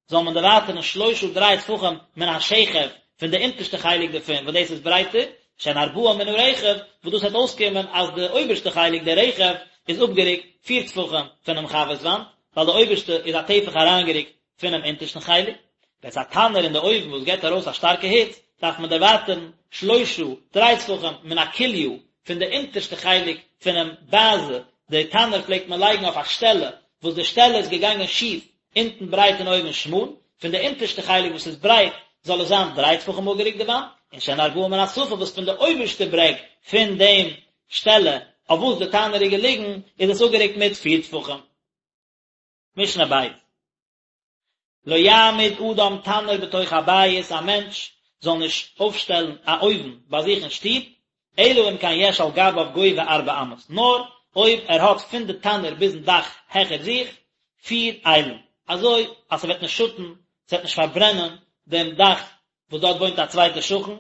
Speaker 1: זאל מען דערווייטערן שלושה דריי טפחים מן השכב, פון די אונטערשטע חלק דערפון, וואס דאס איז ברייטער, שהן ארבעה מן הרכב, וואס דאס וועט אויסקומען אז די אויבערשטע חלק, די רכב, איז אפגערוקט פיר טפחים פונעם חבר'ס וואנט, ווייל די אויבערשטע איז א טפח אריינגערוקט פונעם אונטערשטן חלק. ואת התנור און די אויוון וואס געבט ארויס א שטארקע היץ, דארף מען דערווייטערן שלושה, דריי טפחים, מן הכליא, פון די אונטערשטע חלק פונעם באזע, די תנור פלעגט מען לייגן אויף א שטעלע, וואס די שטעלע איז געגאנגען שיף, אונטן ברייט און אויבן שמאל, פון די אונטערשטע חלק וואס איז ברייט, זאל עס זיין דריי טפחים אפגערוקט די וואנט, און שהן ארבעה מן השפה וואס פון די אויבערשטע ברעג פון דעם שטעלע אויף וואס די תנור איז געליגן, איז עס אפגערוקט מיט פיר טפחים. משנה בית. לא יעמיד אדם תנור בתוך הבית, א מענטש זאל נישט אויפשטעלן א אויוון ביי זיך אין שטוב, אלא אם כן יש על גביו גובה ארבע אמות, נאר אויב ער האט פון די תנור ביזן דאך העכער זיך פיר איילן, אזוי אז ס'וועט נישט שאטן, ס'וועט נישט פארברענען דעם דאך וואס דארט וואוינט א צווייטער שכן.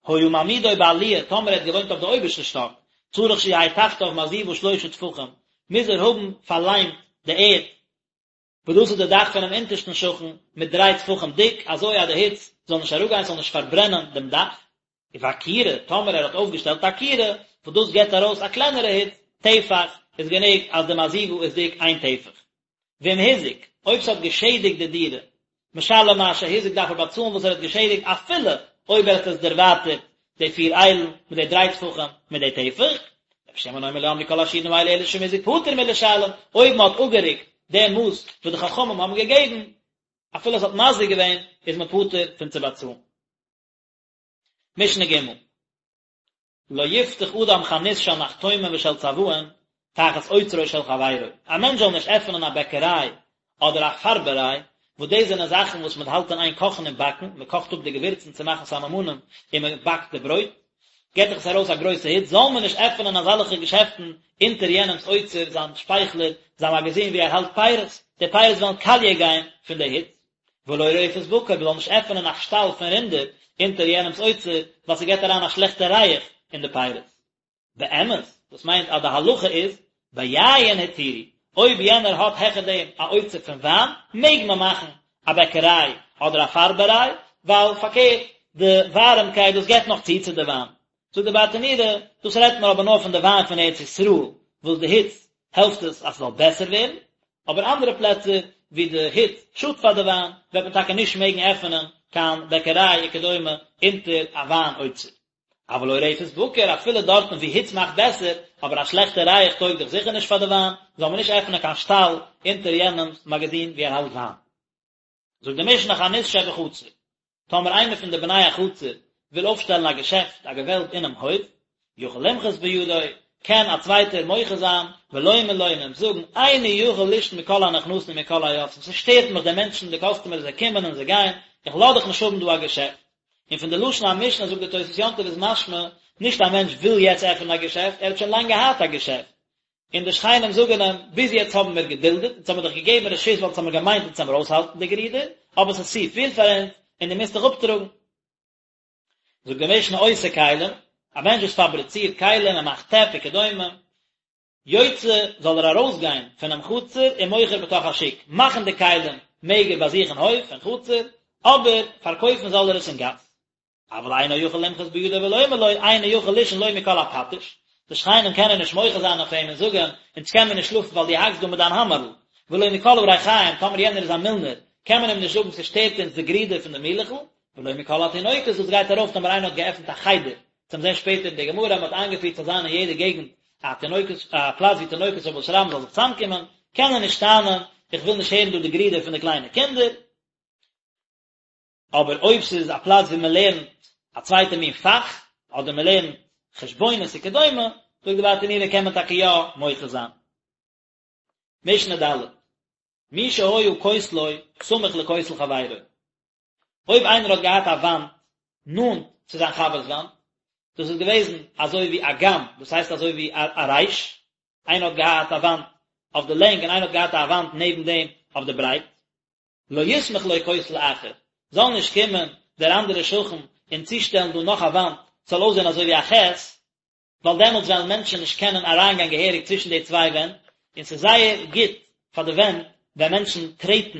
Speaker 1: היה מעמידו בעליה, טאמער ער האט געוואוינט אויף די אויבערשטע שטאק, צריך שיהא תחתיו מעזיבה שלושה טפחים, מוז ער האבן פארליימט די ערד, וואס דאס איז די דאך פונעם אונטערשטן שכן, מיט דריי טפחים דיק, אזוי אז די היץ זאל נישט אראפגיין, ס'זאל נישט פארברענען דעם דאך. ובכירה, טאמער ער האט אויפגעשטעלט א כירה, וואס דאס געבט ארויס א קלענערע היץ, טפח, איז גענוג אז די מעזיבה איז דיק איין טפח. ואם הזיק, אויב ס'האט געשעדיגט די דירה, משלם מה שהזיק דארף ער באצאלן וואס ער האט געשעדיגט אפילו אויב ער האט עס דערווייטערט די פיר איילן מיט די דריי טפחים מיט די טפח. רבי שמעון אומר לא אמרו כל השיעורין האלו אלא שאם הזיק פטור מלשלם, אויב מען האט אפגערוקט די מאס וואס די חכמים האבן געגעבן, אפילו עס האט מזיק געווען, איז מען פטור פון צו באצאלן. משנה ג'. לא יפתח אדם חנות של נחתומים ושל צבעים תחת אוצרו של חברו, א מענטש זאל נישט עפענען א בעקעריי אדער א פארבעריי, וואס דאס זענען זאכן וואס מען האלט אין איין קאכן און באקן, מען קאכט אפ די געווירצן צו מאכן סממנים און מען באקט די ברויט, געט דאך עס ארויס א גרויסע היץ, זאל מען נישט עפענען אזעלכע געשעפטן אונטער יענעמ'ס אוצר, זיין שפייכלער, זיין מאגאזין וואו ער האלט פירות, די פירות וועלן קאליע גיין פון די היץ. ולא רפת בקר, מ'זאל נישט עפענען א שטאל פון רינדער אונטער יענעמ'ס אוצר, ווייל ס'געט אריין א שלעכטע ריח אין די פירות. באמת, דאס מיינט אז די הלכה איז, ביין התירו, אויב יענער האט העכער דעם א אוצר פון וויין, מעג מען מאכן א בעקעריי אדער א פארבעריי, ווייל פארקערט, די ווארעמקייט דאס געט נאך צו צו די וויין. זאגט די ברטנורא, דאס רעדט מען אבער נאר פון די וויין פון ארץ ישראל, וואס די היץ העלפט עס אז ס'זאל בעסער ווערן, אבער אנדערע פלעצער ווי די היץ שאדט פאר די וויין, וועט מען טאקע נישט מעגן עפענען קיין בעקעריי וכדומה אונטער א וויין אוצר. אבל עורפת בקר, אפילו דארטן וואו היץ מאכט בעסער, אבער א שלעכטע ריח טויג דאך זיכער נישט פאר די וויין, זאל מען נישט עפענען קיין שטאל אונטער יענעמ'ס מאגאזין וואו ער האלט וויין. זאגט די משנה חנות שבחצר, טאמער איינער פון די בני החצר וויל אויפשטעלן א געשעפט, א געוועלב אינעם הויף, יכול למחות בידו, קען א צווייטער מוחה זיין, ולומר לו און אים זאגן, איני יכול לישן מקול הנכנסים ומקול היוצאים, ס'שטערט מיך די מענטשן, די קאסטומערס, זיי קומען און זיי גייען, איך לאז דיך נישט האבן דא א געשעפט. און פון די לשון המשנה זאגט די תוס' יום טוב איז משמע, נישט א מענטש וויל יעצט עפענען א געשעפט, ער האט שוין לאנג געהאט א געשעפט, און די שכנים זאגן אים, ביז יעצט האבן מיר געדולדעט, אונז האבן מיר דיך געגעבן רשות ווייל אונז האבן געמיינט אונז וועמיר אויסהאלטן די גערודער, אבער ס'איז צו פיל פאר אונז, און דו מוזט דיך אפטראגן. זאגט די משנה עושה כלים, א מענטש וואס פאבריצירט כלים, ער מאכט טעפ וכדומה, יוצא זאל ער ארויסגיין פונעם חצר ומוכר בתוך השוק, מאכן די כלים מעג ער ביי זיך אין הויף אין חצר, אבער פארקויפן זאל ער עס אין גאס. אבל אינו יכול למחות בידו ולומר לו, איני יכול לישון לא מקול הפטיש, די שכנים קענען נישט מוחה זיין אויף אים און זאגן, אונז קען מיר נישט שלאפן ווייל דו האקסט דא מיט דיין האמערל, ולא מקול הריחיים, טאמער יענער איז א מילנער, קען מען אים נישט זאגן ס'שטערט אונז די גרידער פון די מילעכל, ולא מקול התינוקות דאס גייט ארויף טאמער איינער האט געעפנט א חדר, צום זען שפעטער אין די גמרא אז מען האט איינגעפירט ס'זאל זיין אין יעדע געגנט א תינוקות א פלאץ ווי תינוקות של בית רבן זאל זיך צוזאמקומען, קען ער נישט טענה'ן איך וויל נישט הערן דא די גרידער פון די קליינע קינדער. אבער אויב ס'איז א פלאץ ווי מען לערנט א צווייטע מין פאך, אדער מען לערנט חשבונות וכדומה, זאגט די ברטנורא קען מען טאקע יא מוחה זיין. משנה ד', מי שהיה כותלו סמוך לכותל חברו, אויב איינער האט געהאט א וואנט נאנט צו זיין חבר'ס וואנט, דאס איז געוועזן אזוי ווי א ג"ם, דאס הייסט אזוי ווי א ריש, איינער האט געהאט א וואנט אויף די לענג און איינער האט געהאט א וואנט נעבן דעם אויף די ברייט, לא יסמוך לו כותל אחר, זאל נישט קומען דער אנדערער שכן און צושטעלן דא נאך א וואנט, ס'זאל אויסזען אזוי ווי א חית, ווייל דעמאלטס וועלן מענטשן נישט קענען אריינגיין געהעריג צווישן די צוויי ווענט, און ס'איז זייער גוט פאר די ווענט ווען מענטשן טרעטן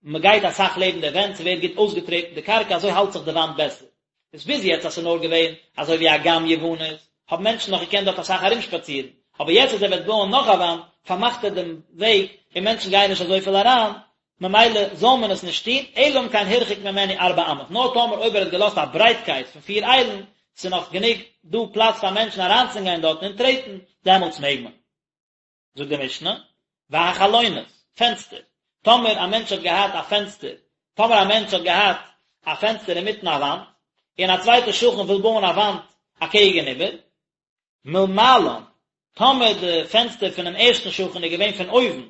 Speaker 1: מען גייט אסאך לעבן די ווענט, ס'ווערט גוט אויסגעטרעטן די קרקע, אזוי האלט זיך די וואנט בעסער. איז ביז יעצט אז ס'איז נאר געווען אזוי ווי א ג"ם יוונית, האבן מענטשן נאך געקענט דארט אסאך ארומשפאצירן, אבער יעצט אז ער וועט בויען נאך א וואנט, פארמאכט ער דעם וועג און מענטשן גייען נישט אזויפיל אריין, ממילא זאל מען עס נישט טון, אלא אם כן הרחיק ממנו ארבע אמות, נאר טאמער אויב ער האט געלאזט א ברייטקייט פון פיר איילן, ס'איז נאך גענוג דא פלאץ פאר מענטשן אריינצונגיין דארטן און טרעטן, דעמאלטס מעג מען. זאגט די משנה, והחלונות, פענסטער, טאמער א מענטש האט געהאט א פענסטער, טאמער א מענטש האט געהאט א פענסטער אינמיטן א וואנט, און א צווייטער שכן וויל בויען א וואנט אקעגן איבער, מלמעלן, טאמער די פענסטער פונעם ערשטן שכן איז געווען פון אויבן,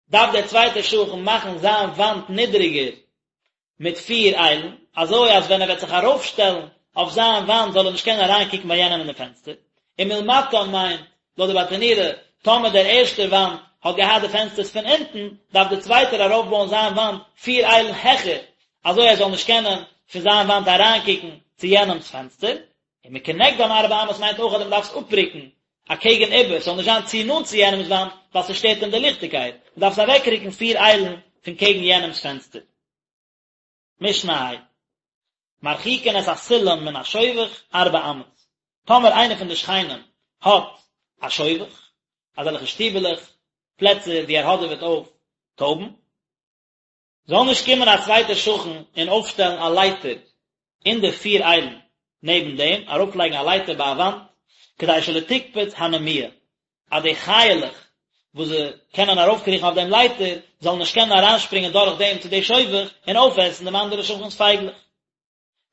Speaker 1: דארף דער צווייטער שכן מאכן זיין וואנט נידריגער מיט פיר איילן, אזוי אז ווען ער וועט זיך ארויפשטעלן אויף זיין וואנט זאל ער נישט קענען אריינקוקן ביי יענעם אין די פענסטער. ומלמטן מיינט, לויט די ברטנורא, טאמער דער ערשטער וואנט האט געהאט די פענסטערס פון אונטן, דארף דער צווייטער ארויפבויען זיין וואנט פיר איילן העכער, אזוי ער זאל נישט קענען פון זיין וואנט אריינקוקן צו יענעמ'ס פענסטער. ומכנגדן ארבע אמות מיינט אויך אז מען דארף עס אפרוקן אקעגן איבער, ס'זאל נישט זיין צו נאנט צו יענעמ'ס וואנט, ווייל ס'שטערט אים די ליכטיגקייט, מען דארף עס אוועקרוקן פיר איילן פון קעגן יענעמ'ס פענסטער. משנה ה'. מרחיקין את הסולם מן השובך ארבע אמות, טאמער איינער פון די שכנים האט א שובך, אזעלכע שטיבעלעך, פלעצער וואו ער האדעוועט אויף טויבן, זאל נישט קומען א צווייטער שכן און אויפשטעלן א לייטער אין די פיר איילן נעבן דעם, ארויפלייגן א לייטער ביי א וואנט, כדי שלא תקפוץ הנמיה, אז די חיה'לעך וואס זיי קענען ארויפקריכן אויף דעם לייטער, זאלן נישט קענען אריינשפרינגען דורך דעם צו די שובך און אויפעסן דעם אנדערן שכן'ס פייגלעך.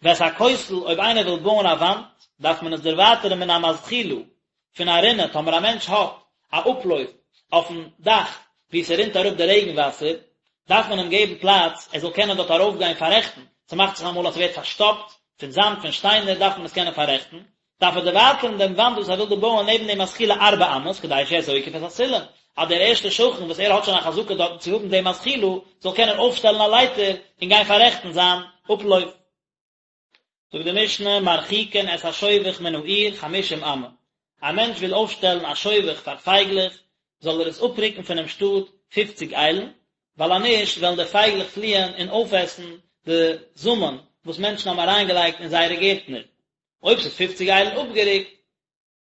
Speaker 1: ואת הכותל, אויב איינער וויל בויען א וואנט, דארף מען עס דערווייטערן מן המזחילה, פון א רינע, טאמער א מענטש האט א אפלויף אויפן דאך וואו ס'רינט אראפ די רעגן וואסער, דארף מען אים געבן פלאץ ער זאל קענען דארט ארויפגיין פאררעכטן, ס'מאכט זיך אמאל אז ס'ווערט פארשטאפט פון זאמד פון שטיינער דארף מען עס קענען פאררעכטן, דארף ער דערווייטערן דעם וואנט וואס ער וויל דא בויען נעבן דעם מזחילה ארבע אמות כדי שיהא זוקף את הסולם, אז דער ערשטער שכן וואס ער האט שוין א חזקה דארטן צו האבן דעם מזחילה זאל קענען אויפשטעלן א לייטער און גיין פאררעכטן זיין אפלויף. זאגט די משנה, מרחיקין את השובך מן העיר חמישים אמה, א מענטש וויל אויפשטעלן א שובך פאר פייגלעך, זאל ער עס אפרוקן פונעם שטאט פופציג איילן, ווייל אז נישט וועלן די פייגלעך פליען און אויפעסן די זאמען וואס מענטשן האבן אריינגעלייגט אין זייערע גערטנער. אויב ס'איז פופציג איילן אפגערוקט,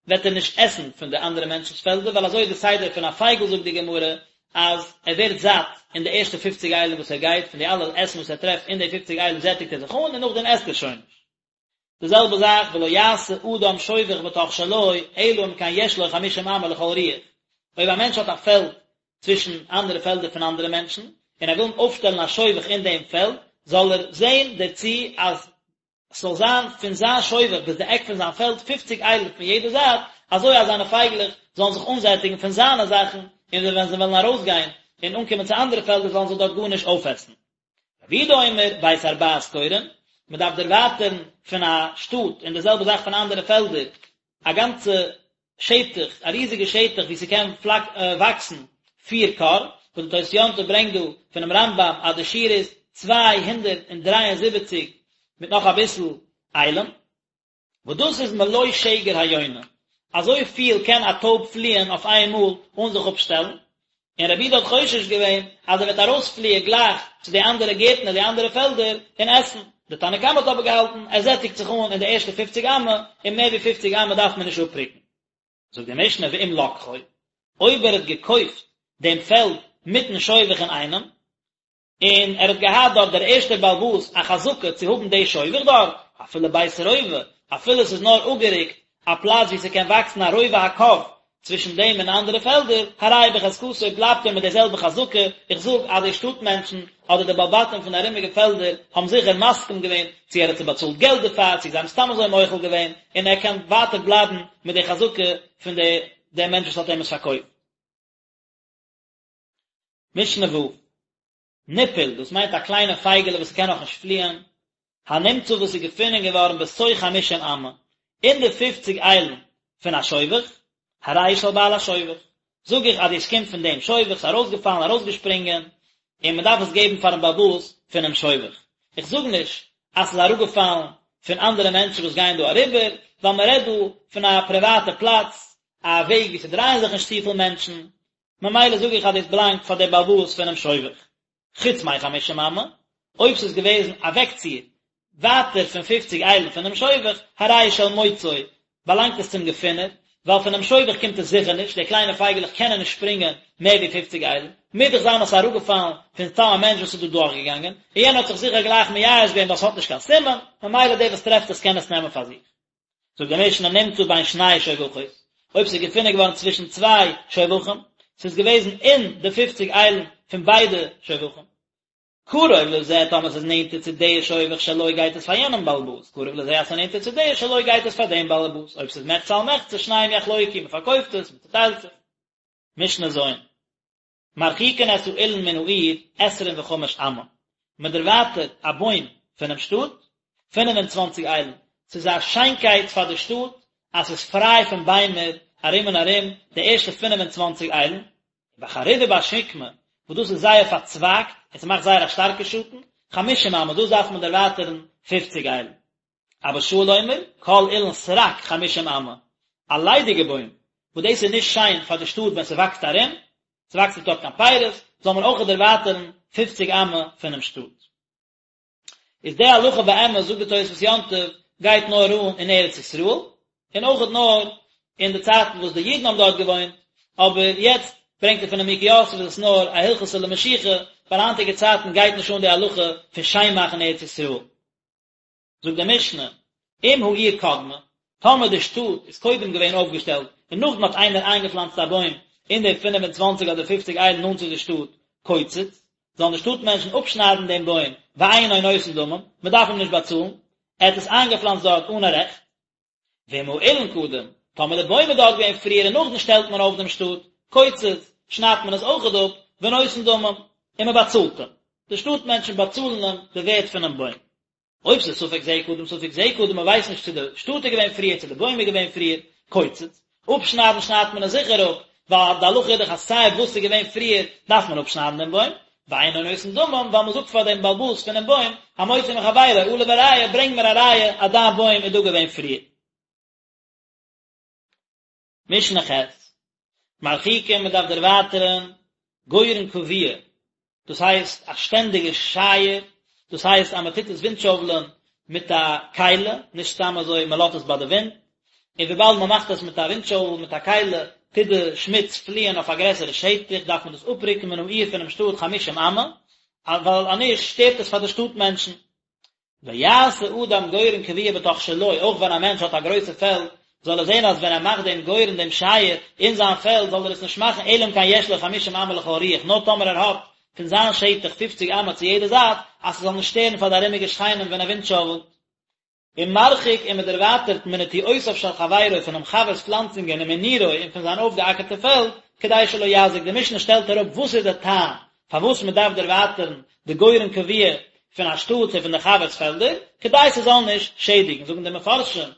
Speaker 1: וועט ער נישט עסן פון די אנדערע מענטשנ'ס פעלדער, ווייל אזוי איז די סדר פון א פייגל זאגט די גמרא, אז ער ווערט זאט אין די ערשטע פופציג איילן וואס ער גייט, פון די אלע עסן וואס ער טרעפט אין די פופציג איילן זעטיגט ער זיך אן און נאכדעם עסט ער שוין נישט. די זעלבע זאך ולא יעשה אדם שובך בתוך שלו אלא אם כן יש לו חמישים אמה לכל רוח, אויב א מענטש האט א פעלד צווישן אנדערע פעלדער פון אנדערע מענטשן, און ער וויל אויפשטעלן א שובך אין דעם פעלד, זאל ער זען דערצו אז ס'זאל זיין פון זיין שובך ביז די עק פון זיין פעלד פופציג איילן פון יעדע זייט, אזוי אז זיינע פייגלעך זאלן זיך אנזעטיגן פון זיינע זאכן, און ווען זיי וועלן ארויסגיין און אנקומען צו אנדערע פעלדער זאלן זיי דארט גארנישט אויפעסן. רבי יהודה אומר, בית הרבעת קורין, מען דארף דערווייטערן פון א שטאט און די זעלבע זאך פון אנדערע פעלדער, א גאנצע שטח, א ריזיגע שטח וואו ס'קען וואקסן פיר כור, וואס די תוס' יום טוב ברענגט דא פונעם רמב"ם אז די שיעור איז 273 מיט נאך אביסל איילן. וואס דאס איז מלא שגר היונה, אזוי פיל קען א טויב פליען אויף איין מאל אן זיך אפשטעלן, און רבי יהודה האט חושש געווען אז ער וועט ארויספליען גלייך צו די אנדערע גערטנער די אנדערע פעלדער און עסן, די תנא קמא האט אבער געהאלטן ער זעטיגט זיך אן אין די ערשטע פופציג אמה און מער ווי פופציג אמה דארף מען נישט אפרוקן. זאגט די משנה ואם לקחו, אויב ער האט געקויפט דעם פעלד מיטן שובך אינאיינעם, און ער האט געהאט דארט דער ערשטער בעל הבית א חזקה צו האבן די שובך דארט, אפילו בית רובע, אפילו ס'איז נאר אפגערוקט א פלאץ וואו ס'קען וואקסן א רובע הקב צווישן דעם און אנדערע פעלדער, הרי הוא בחזקתו בלייבט ער מיט די זעלבע חזקה, איך זאג אז די שטאט מענטשן אדער די בעלי בתים פון די ארומיגע פעלדער האבן זיכער מסכים געווען, צו ער האט זיי באצאלט געלט דערפאר, צו זיי האבן סתם אזוי מוחל געווען, און ער קען ווייטער בלייבן מיט די חזקה פון די דעם מענטש וואס האט אים עס פארקויפט. משנה ו', ניפול, דאס מיינט א קליינע פייגעלע וואס קען נאכנישט פליען, הנמצא וואס איז געפונען געווארן בתוך חמישים אמה, אין די פופציג איילן פון א שובך, הרי הוא של בעל השובך, זאג איך אז דאס קומט פון דעם שובך, ס'איז ארויסגעפאלן, ארויסגעשפרינגען, און מען דארף עס געבן פארן בעל הבית פונעם שובך. איך זאג נישט אז ס'איז אראפגעפאלן פון אנדערע מענטשן וואס גייען דא אריבער, ווייל מען רעדט דא פון א פריוואטע פלאץ, א וועג וואו ס'דרייען זיך נישט צופיל מענטשן, ממילא זאג איך אז דאס באלאנגט פאר דער בעל הבית פונעם שובך. חוץ מחמישים אמה, אויב ס'איז געוועזן אוועקציר ווייטער פון פופציג איילן פונעם שובך, הרי הוא של מוצאו, באלאנגט עס צום געפינער, ווייל פונעם שובך קומט עס זיכער נישט, די קליינע פייגעלעך קענען נישט שפרינגען מער ווי פופציג איילן, מוז דאך זיין אז ס'איז אראפגעפאלן פון סתם א מענטש וואס איז דא דורכגעגאנגען, און יענער האט זיך זיכער גלייך מייאש געווען ווייל ס'האט נישט קיין סימן, ממילא דער וואס טרעפט עס קען עס נעמען פאר זיך. זאגט די משנה נמצא בין שני שובכות, אויב ס'איז געפונען געווארן צווישן צוויי שובכים, ס'איז געוועזן אין די פופציג איילן פון ביידע שובכים, קרוב לזה טאמער ס'איז נענטער צו די שובך שלו גייט עס פאר יענעם בעל הבית, קרוב לזה אז ס'איז נענטער צו די שלו גייט עס פאר דעם בעל הבית, אויב ס'איז מחצה על מחצה שניהם יחלוקו, מ'פארקויפט עס, מ'צוטיילט זיך. משנה ז'. מרחיקין את האילן מן העיר עשרים וחמש אמה, מען דערווייטערט א בוים פונעם שטאט פינף און צוואנציג איילן, ס'איז א שיינקייט פאר די שטאט אז ס'איז פריי פון ביימער ארום און ארום די ערשטע פינף און צוואנציג איילן, ובחרוב ובשקמה וואס דאס איז זייער פארצווייגט און ס'מאכט זייער א שטארקע שאטן, חמישים אמה, דאס דארף מען דערווייטערן פופציג איילן. אבא שאול אומר, כל אילן סרק חמישים אמה, א ליידיגע בוים, וואס דאס איז נישט שיין פאר די שטאט ווען ס'וואקסט ארום, ס'וואקסט נישט דארט קיין פירות, זאל מען אויך דערווייטערן פופציג אמה פונעם שטאט. איז די הלכה באמת, זאגט די תוספות יום טוב, גייט נאר אן אין ארץ ישראל, און אויכעט נאר אין די צייטן וואס די אידן האבן דארט געוואוינט, אבער יעצט ברענגט ער פון נימוקי יוסף איז עס נאר א הלכתא למשיחא, ווייל היינטיגע צייטן גייט נישט אן די הלכה פון שיין מאכן ארץ ישראל. זאגט די משנה, אם העיר קדמה, טאמער די שטאט איז קודם געווען אויפגעשטעלט און נאכדעם האט איינער איינגעפלאנצט א בוים אין די פינף און צוואנציג אדער פופציג איילן נאנט צו די שטאט, קוצץ, זאלן די שטאט מענטשן אפשניידן דעם בוים, ואינו נותן דמים, מען דארף אים נישט באצאלן, ער האט עס איינגעפלאנצט דארט אן א רעכט. ואם האילן קדם, טאמער די בוים איז דארט געווען פריער און נאכדעם שטעלט מען אויף דעם שטאט, קוצץ, שניידט מען עס אויכעט אפ, ונותן דמים, און מען באצאלט אים. די שטאט מענטשן באצאלן אים די ווערט פונעם בוים. אויב ס'איז ספק זה קדם ספק זה קדם, מ'ווייסט נישט צו די שטאט איז געווען פריער צו די בוים איז געווען פריער, קוצץ, אפשניידן שניידט מען עס זיכער אפ, ווייל די הלכה איז דאך אז סיי וואס איז געווען פריער דארף מען אפשניידן דעם בוים, ואינו נותן דמים, ווייל מ'זאגט פאר דעם בעל הבית פונעם בוים, המוציא מחבירו עליו הראיה, ברענג מיר א ראיה אז דיין בוים איז דא געווען פריער. משנה ח', מרחיקין מען דארף דערווייטערן גורן קבוע, דאס הייסט א שטענדיגע שייער, דאס הייסט אז מען טוט עס ווינטשויבלען מיט א כלי, נישט סתם אזוי מען לאזט עס ביי די ווינט, און וויבאלד מען מאכט עס מיט א ווינטשויבל מיט א כלי, טוט די שמוץ פליען אויף א גרעסערע שטח, דארף מען דאס אפרוקן מן העיר פונעם שטאט חמישים אמה, ווייל אנישט שטערט עס פאר די שטאט מענטשן. ויעשה אדם גורן קבוע בתוך שלו, אויך ווען א מענטש האט א גרויסע פעלד, זאל ער זען אז ווען ער מאכט דעם גורן דעם שייער אין זיין פעלד זאל ער עס נישט מאכן אלא אם כן יש לו חמישים אמה לכל רוח, נאר טאמער ער האט פון זיין שטח פופציג אמה צו יעדע זייט, אז ס'זאל נישט שטערן פאר די ארומיגע שכנים ווען ער ווינטשאוועלט. ומרחיק און מען דערווייטערט מנטיעותיו של חברו פונעם חבר'ס פלאנצונגען ומנירו און פון זיין אויפגעאקערטע פעלד, כדי שלא יזיק, די משנה שטעלט אראפ וואס איז די טעם פארוואס מען דארף דערווייטערן די גורן קבוע פון א שטאט צו פון די חבר'ס פעלדער, כדי ס'זאל נישט שעדיגן, זאגן די מפרשים,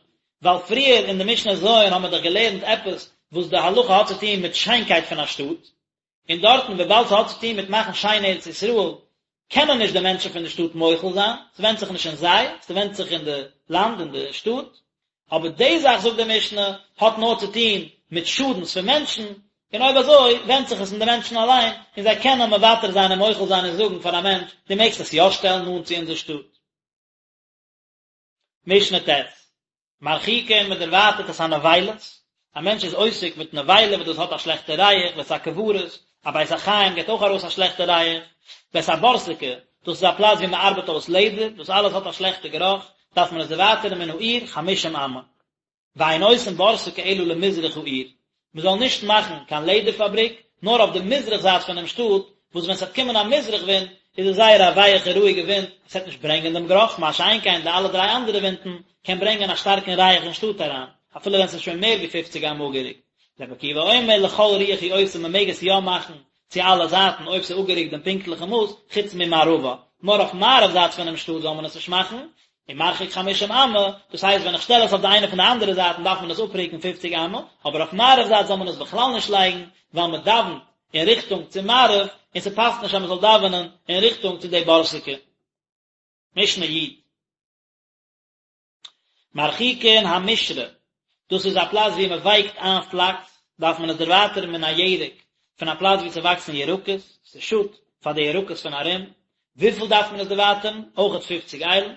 Speaker 1: ווייל פריער אין די משנה ז' האבן מיר דאך געלערנט עפעס וואס די הלכה האט צו טון מיט שיינקייט פון א שטאט, און דארטן וויבאלד ס'האט צו טון מיט מאכן שיין ארץ ישראל, קענען נישט די מענטשן פון די שטאט מוחל זיין, ס'ווענדט זיך נישט אין זיי, ס'ווענדט זיך אין די לאנד, אין די שטאט. אבער די זאך, זאגט די משנה, האט נאר צו טון מיט שאדנס פון מענטשן, און אויב אזוי ווענדט זיך עס אין די מענטשן אליין, און זיי קענען מוותר זיין און מוחל זיין און זאגן פאר א מענטש, דו מעגסט עס יא שטעלן נאנט צו אונזער שטאט. משנה ט', מרחיקין מען דערווייטערט את הנבילות, א מענטש איז עוסק מיט נבילה וואס דאס האט א שלעכטע ריח, ואת הקברות, א בית החיים געבט אויך ארויס א שלעכטע ריח, ואת הבורסקי, דאס איז א פלאץ ווי מען ארבעט אויס לעדער, דאס אלעס האט א שלעכטע גערוך, דארף מען עס דערווייטערן מן העיר חמשים אמה. ואין עושין בורסקי אלא למזרח העיר, מען זאל נישט מאכן קיין לעדער פאבריק נאר אויף די מזרח זייט פונעם שטאט, וואס ווען ס'וועט קומען א מזרח ווינט איז עס זייער א ווייעכע רואיגע ווינט, עס וועט נישט ברענגען דעם גערוך, מה שאין כן די אלע דריי אנדערע ווינטן קען ברענגען א שטארקן ריח אין שטאט אריין, אפילו ווען ס'איז שוין מער ווי פופציג אמה אפגערוקט. רבי עקיבא אומר לכל רוח הוא עושה מען מעג עס יא מאכן צו אלע זייטן אויב ס'איז אפגערוקט דעם פונקטליכן מאס, חוץ ממערבה, נאר אויף מערב זייט פונעם שטאט זאל מען עס נישט מאכן, ומרחיק חמישים אמה, דאס הייסט ווען איך שטעל עס אויף די איינע פון די אנדערע זייטן דארף מען עס אפרוקן פופציג אמה, אבער אויף מערב זייט זאל מען עס בכלל נישט לייגן, ווייל מען דאווענט אין ריכטונג צו מערב, און ס'פאסט נישט אז מען זאל דאווענען אין ריכטונג צו די בורסקי. משנה י'. מרחיקין המשרה, דאס איז א פלאץ ווי מען ווייקט איין פלאקס, דארף מען עס דערווייטערן מן הירק, פון א פלאץ ווי ס'וואקסן ירקות, ס'שאדט פאר די ירקות פון ארום, וויפיל דארף מען עס דערווייטערן? אויכעט פופציג איילן.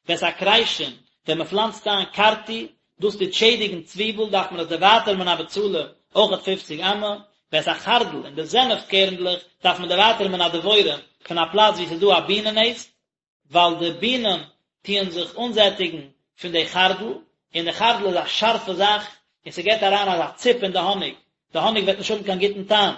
Speaker 1: ואת הכרישין, ווען מען פלאנצט איין קארטי, דאס טוט שעדיגן צוויבל, דארף מען עס דערווייטערן מן הבצלים, אויכעט פופציג אמה. ואת החרדל, און די זענעפט קערנדלעך, דארף מען דערווייטערן מן הדבורים, פון א פלאץ ווי ס'איז דא א בינען נעסט, ווייל די בינען טוען זיך אנזעטיגן פון די חרדל, און די חרדל איז א שארפע זאך, און ס'געט אריין אזא ציפ אין די האניג, די האניג וועט נישט האבן קיין גוטן טעם.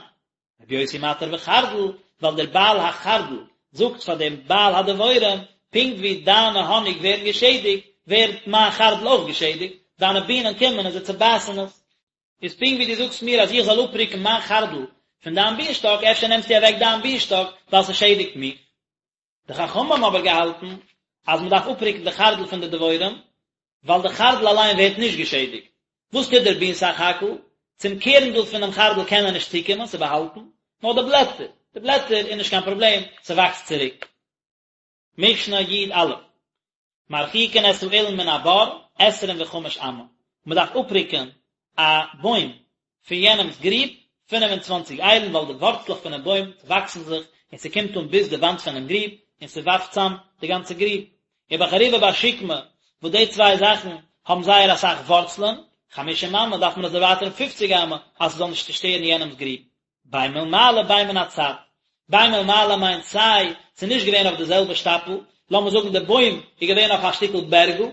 Speaker 1: רבי יוסי מתיר בחרדל, ווייל דער בעל החרדל זאגט פאר דעם בעל הדבורים, פונקט ווי דיינע האניג ווערן געשעדיגט, ווערט מיין חרדל אויך געשעדיגט, דיינע בינען קומען און זיי צעבייסן עס. איז פונקט ווי דו זאגסט מיר אז איך זאל אפרוקן מיין חרדל פון דיין בינשטאק, אפשר נעמסטו אוועק דיין בינשטאק ווייל ס'שעדיגט מיך. די חכמים האבן אבער געהאלטן אז מען דארף אפרוקן די חרדל פון די דבורים, ווייל די חרדל אליין ווערט נישט געשעדיגט. וואס טוט דער בין סך הכל? צום קערנדל פונעם חרדל קען ער נישט צוקומען, ס'איז באהאלטן, נאר די בלעטער, די בלעטער איז נישט קיין פראבלעם, ס'וואקסט צוריק. משנה י"א, מרחיקין את האילן מן הבור עשרים וחמש אמה, מען דארף אפרוקן א בוים פון יענעמ'ס גריב 25 איילן ווייל די ווארצלעך פונעם בוים וואקסן זיך און ס'קומט אן ביז די וואנט פונעם גריב און ס'ווארפט צאם די גאנצע גריב. ובחרובה ובשקמה וואס די צוויי זאכן האבן זייער אסאך ווארצלען, חמישים אמה דארף מען עס דערווייטערן פופציג אמה אז ס'זאל נישט צושטערן יענעמ'ס גריב. בין מלמעלה בין מן הצד. בין מלמעלה מיינט סיי ס'איז נישט געווען אויף די זעלבע שטאפל, לאמיר זאגן די בוים איז געווען אויף א שטיקל בערגל,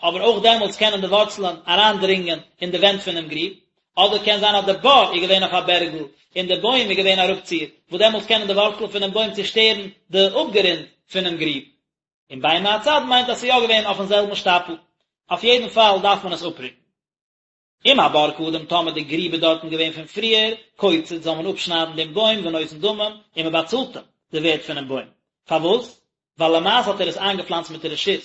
Speaker 1: אבער אויך דעמאלטס קענען די ווארצלען אריינדרינגען אין די ווענט פונעם גריב, אדער קען זיין אז די בור איז געווען אויף א בערגל און די בוים איז געווען אראפציר, וואס דעמאלטס קענען די ווארצלען פונעם בוים צושטערן די אפגרונד פונעם גריב. און בין מהצד מיינט אז ס'איז יא געווען אויפן זעלבן שטאפל. אויף יעדן פאל דארף מען עס אפרוקן. אם הבור קדם טאמער די גריב איז דארטן געווען פון פריער, קוצץ זאל מען אפשניידן דעם בוים ונותן דמים, און מען באצאלט אים די ווערט פונעם בוים. פארוואס? ווייל למעשה האט ער עס איינגעפלאנצט מיט רשות,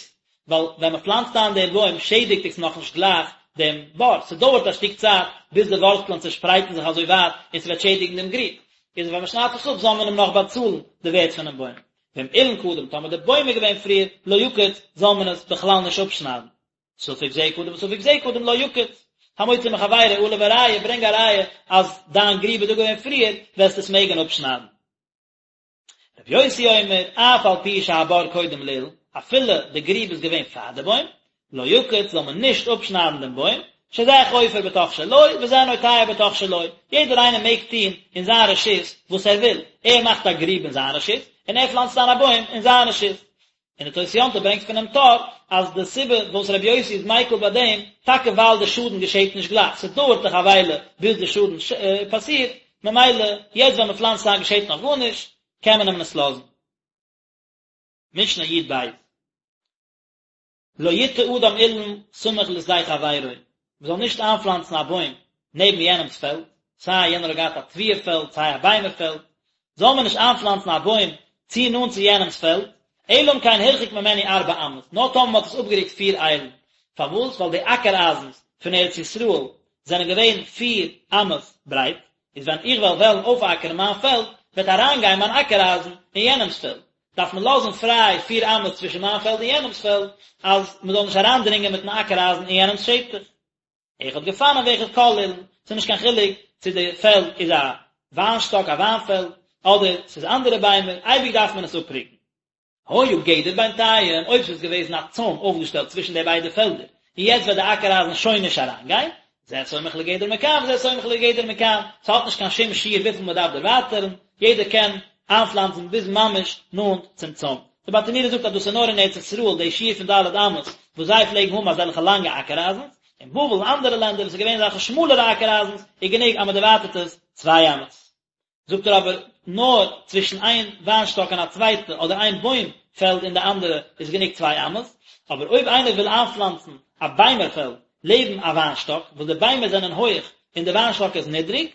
Speaker 1: ווייל ווען מען פלאנצט איין דעם בוים שעדיגט עס נאכנישט גלייך דעם בור, ס'דויערט א שטיק צייט ביז די ווארצלען צעשפרייטן זיך אזוי ווייט און ס'וועט שעדיגן דעם גריב, איז ווען מען שניידט עס אפ זאל מען אים נאך באצאלן די ווערט פונעם בוים. ואם אילן קדם טאמער די בוים איז געווען פריער, לא יקוץ, זאל מען עס בכלל נישט אפשניידן. ספק זה קדם וספק זה קדם לא יקוץ. המוציא מחבירו עליו הראיה, ברענג א ראיה אז דיין גריב איז דא געווען פריער, וועסטו עס מעגן אפשניידן. רבי יוסי אומר, אף על פי שהבור קודם לאילן, אפילו די גריב איז געווען פאר די בוים, לא יקוץ, זאל מען נישט אפשניידן דעם בוים, שזה חופר בתוך שלו, וזה נוטע בתוך שלו, יעדער איינער מעג טון אין זיין רשות וואס ער וויל, ער מאכט א גריב אין זיין רשות, און ער פלאנצט איין א בוים אין זיין רשות. און די תוס' יום טוב ברענגט פונעם טור אז די סיבה וואס רבי יוסי איז מיקל ביי דעם, טאקע ווייל די שאדן געשעט נישט גלייך, ס'דויערט דאך א וויילע ביז די שאדן פאסירט, ממילא יעצט ווען מ'פלאנצט איין געשעט נאך גארנישט, קען מען אים עס לאזן. משנה י"ב. לא יטע אדם אילן סמוך לשדה חברו, מען זאל נישט איינפלאנצן א בוים נעבן יענעמ'ס פעלד, סיי יענער האט געהאט א תבואה פעלד סיי א ביימער פעלד, זאל מען נישט איינפלאנצן א בוים צו נאנט צו יענעמ'ס פעלד, אלא אם כן הרחיק ממנו ארבע אמות, נאר טאמער מען האט עס אפגערוקט פיר איילן, פארוואס? ווייל די אקער אייזנס פון ארץ ישראל זענען געווען פיר אמות ברייט, איז ווען איך וועל וועלן אויפאקערן מיין פעלד, וועט אריינגיין מיין אקער אייזן אין יענעמ'ס פעלד, דארף מען לאזן פריי פיר אמות צווישן מיין פעלד און יענעמ'ס פעלד, אז מען זאל נישט אריינדרינגען מיט'ן אקער אייזן אין יענעמ'ס שטח. אחד גפנים ואחד כל אילן, ס'איז נישט קיין חילוק צו די פעלד איז א וויינשטאק, א וויינפעלד, אדער ס'איז אנדערע ביימער, אייביג דארף מען עס אפרוקן. היה גדר בינתיים, אויב ס'איז געוועזן א צוים אויפגעשטעלט צווישן די ביידע פעלדער, און יעצט וועט די אקער אייזן שוין נישט אריינגיין, זה סומך לגדר מכאן וזה סומך לגדר מכאן, ס'האט נישט קיין שום שיעור וויפיל מ'דארף דערווייטערן, יעדער קען איינפלאנצן ביז ממש נאנט צום צוים. די ברטנורא זאגט אז דאס איז נאר אין ארץ ישראל די שיעור פון ד' אמות וואס זיי פלעגן האבן אזעלכע לאנגע אקער אייזנס, אין בבל און אנדערע לענדער וואס איז געווען אזעלכע שמאלערע אקער אייזנס איז גענוג אז מ'דערווייטערט עס צוויי אמות. זאגט ער אבער נאר צווישן איין וויינשטאק און א צווייטע אדער איין בוים פעלד און די אנדערע איז גענוג צוויי אמות, אבער אויב איינער וויל איינפלאנצן א ביימער פעלד לעבן א וויינשטאק וואס די ביימער זענען הויך און די וויינשטאק איז נידריג,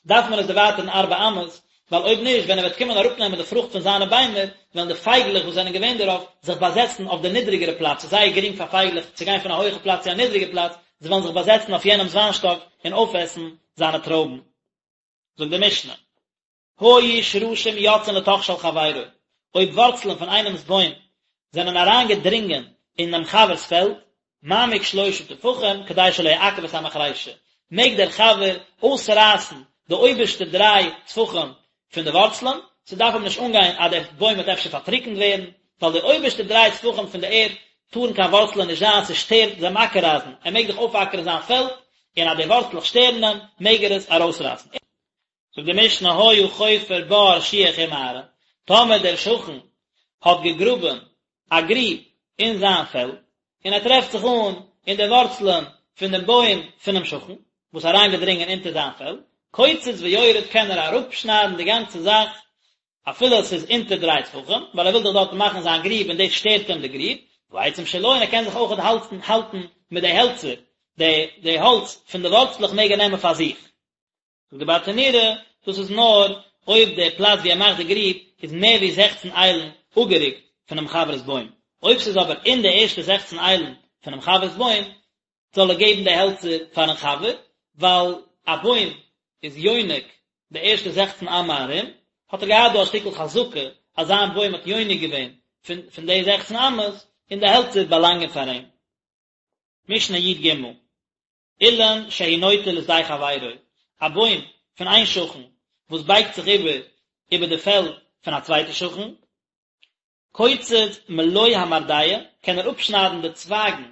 Speaker 1: דארף מען עס דערווייטערן ארבע אמות, ווייל אויב נישט ווען ער וועט קומען אראפנעמען די פרוכט פון זיינע ביימער וועלן די פייגלעך וואס זענען געווען דערויף זיך באזעצן אויף די נידריגערע פלאץ, ס'איז זייער גרינג פאר פייגלעך צו גיין פון א הויכע פלאץ צו א נידריגע פלאץ, זיי וועלן זיך באזעצן אויף יענעמ'ס וויינשטאק און אויפעסן זיינע טרויבן. זאגט די משנה, היו שרשים יוצאין לתוך של חברו, אויב ווארצלען פון איינעמ'ס בוים זענען אריין געדרינגען אין דעם חבר'ס פעלד, מעמיק שלשה טפחים כדי שלא יעכב את המחרישה, מעג דער חבר אויסרייסן די אויבערשטע דריי טפחים פון די ווארצלען, ס'דארף אים נישט אנגיין אז דער בוים וועט אפשר פארטריקנט ווערן, ווייל די אויבערשטע דריי טפחים פון די ערד טארן קיין ווארצלען נישט זיין, ס'שטערט דעם אקער אייזן, ער מעג דאך אויפאקערן זיין פעלד, און אז די ווארצלעך שטערן אים, מעג ער עס ארויסרייסן. זאגט די משנה היה חופר בור שיח ומערה, טאמער דער שכן האט געגראבען א גריב אין זיין פעלד, און ער טרעפט זיך אן אין די ווארצלען פון דעם בוים פונעם שכן, וואס איז אריינגעדרינגען אונטער זיין פעלד, קוצץ ויורד קען ער אראפשניידן די גאנצע זאך, אפילו עס איז אונטער דריי טפחים, ווייל ער וויל דאך דארטן מאכן זיין גריב און דאס שטערט אים די גריב, והעצים שלו, און ער קען זיך אויכעט האלטן האלטן מיט די העלצער, די די האלץ פון די ווארצלעך מעג ער נעמען פאר זיך. זאגט די ברטנורא, דאס איז נאר אויב די פלאץ ווי ער מאכט די גריב איז מער ווי זעכצן איילן אפגערוקט פונעם חבר'ס בוים, אויב ס'איז אבער אין די ערשטע זעכצן איילן פונעם חבר'ס בוים, זאל ער געבן די העלצער פארן חבר, ווייל א בוים איז יונק די ערשטע זעכצן אמה ארום, האט ער געהאט דא א שטיקל חזקה אז זיין בוים האט יונק געווען פון פון די זעכצן אמות, און די העלצער באלאנגען פאר אים. משנה י"ג, אילן שהוא נוטה לשדה חברו, א בוים פון איין שכן וואס בייגט זיך איבער איבער די פעלד פון א צווייטע שכן, קוצץ מלא המרדע, קען ער אפשניידן די צווייגן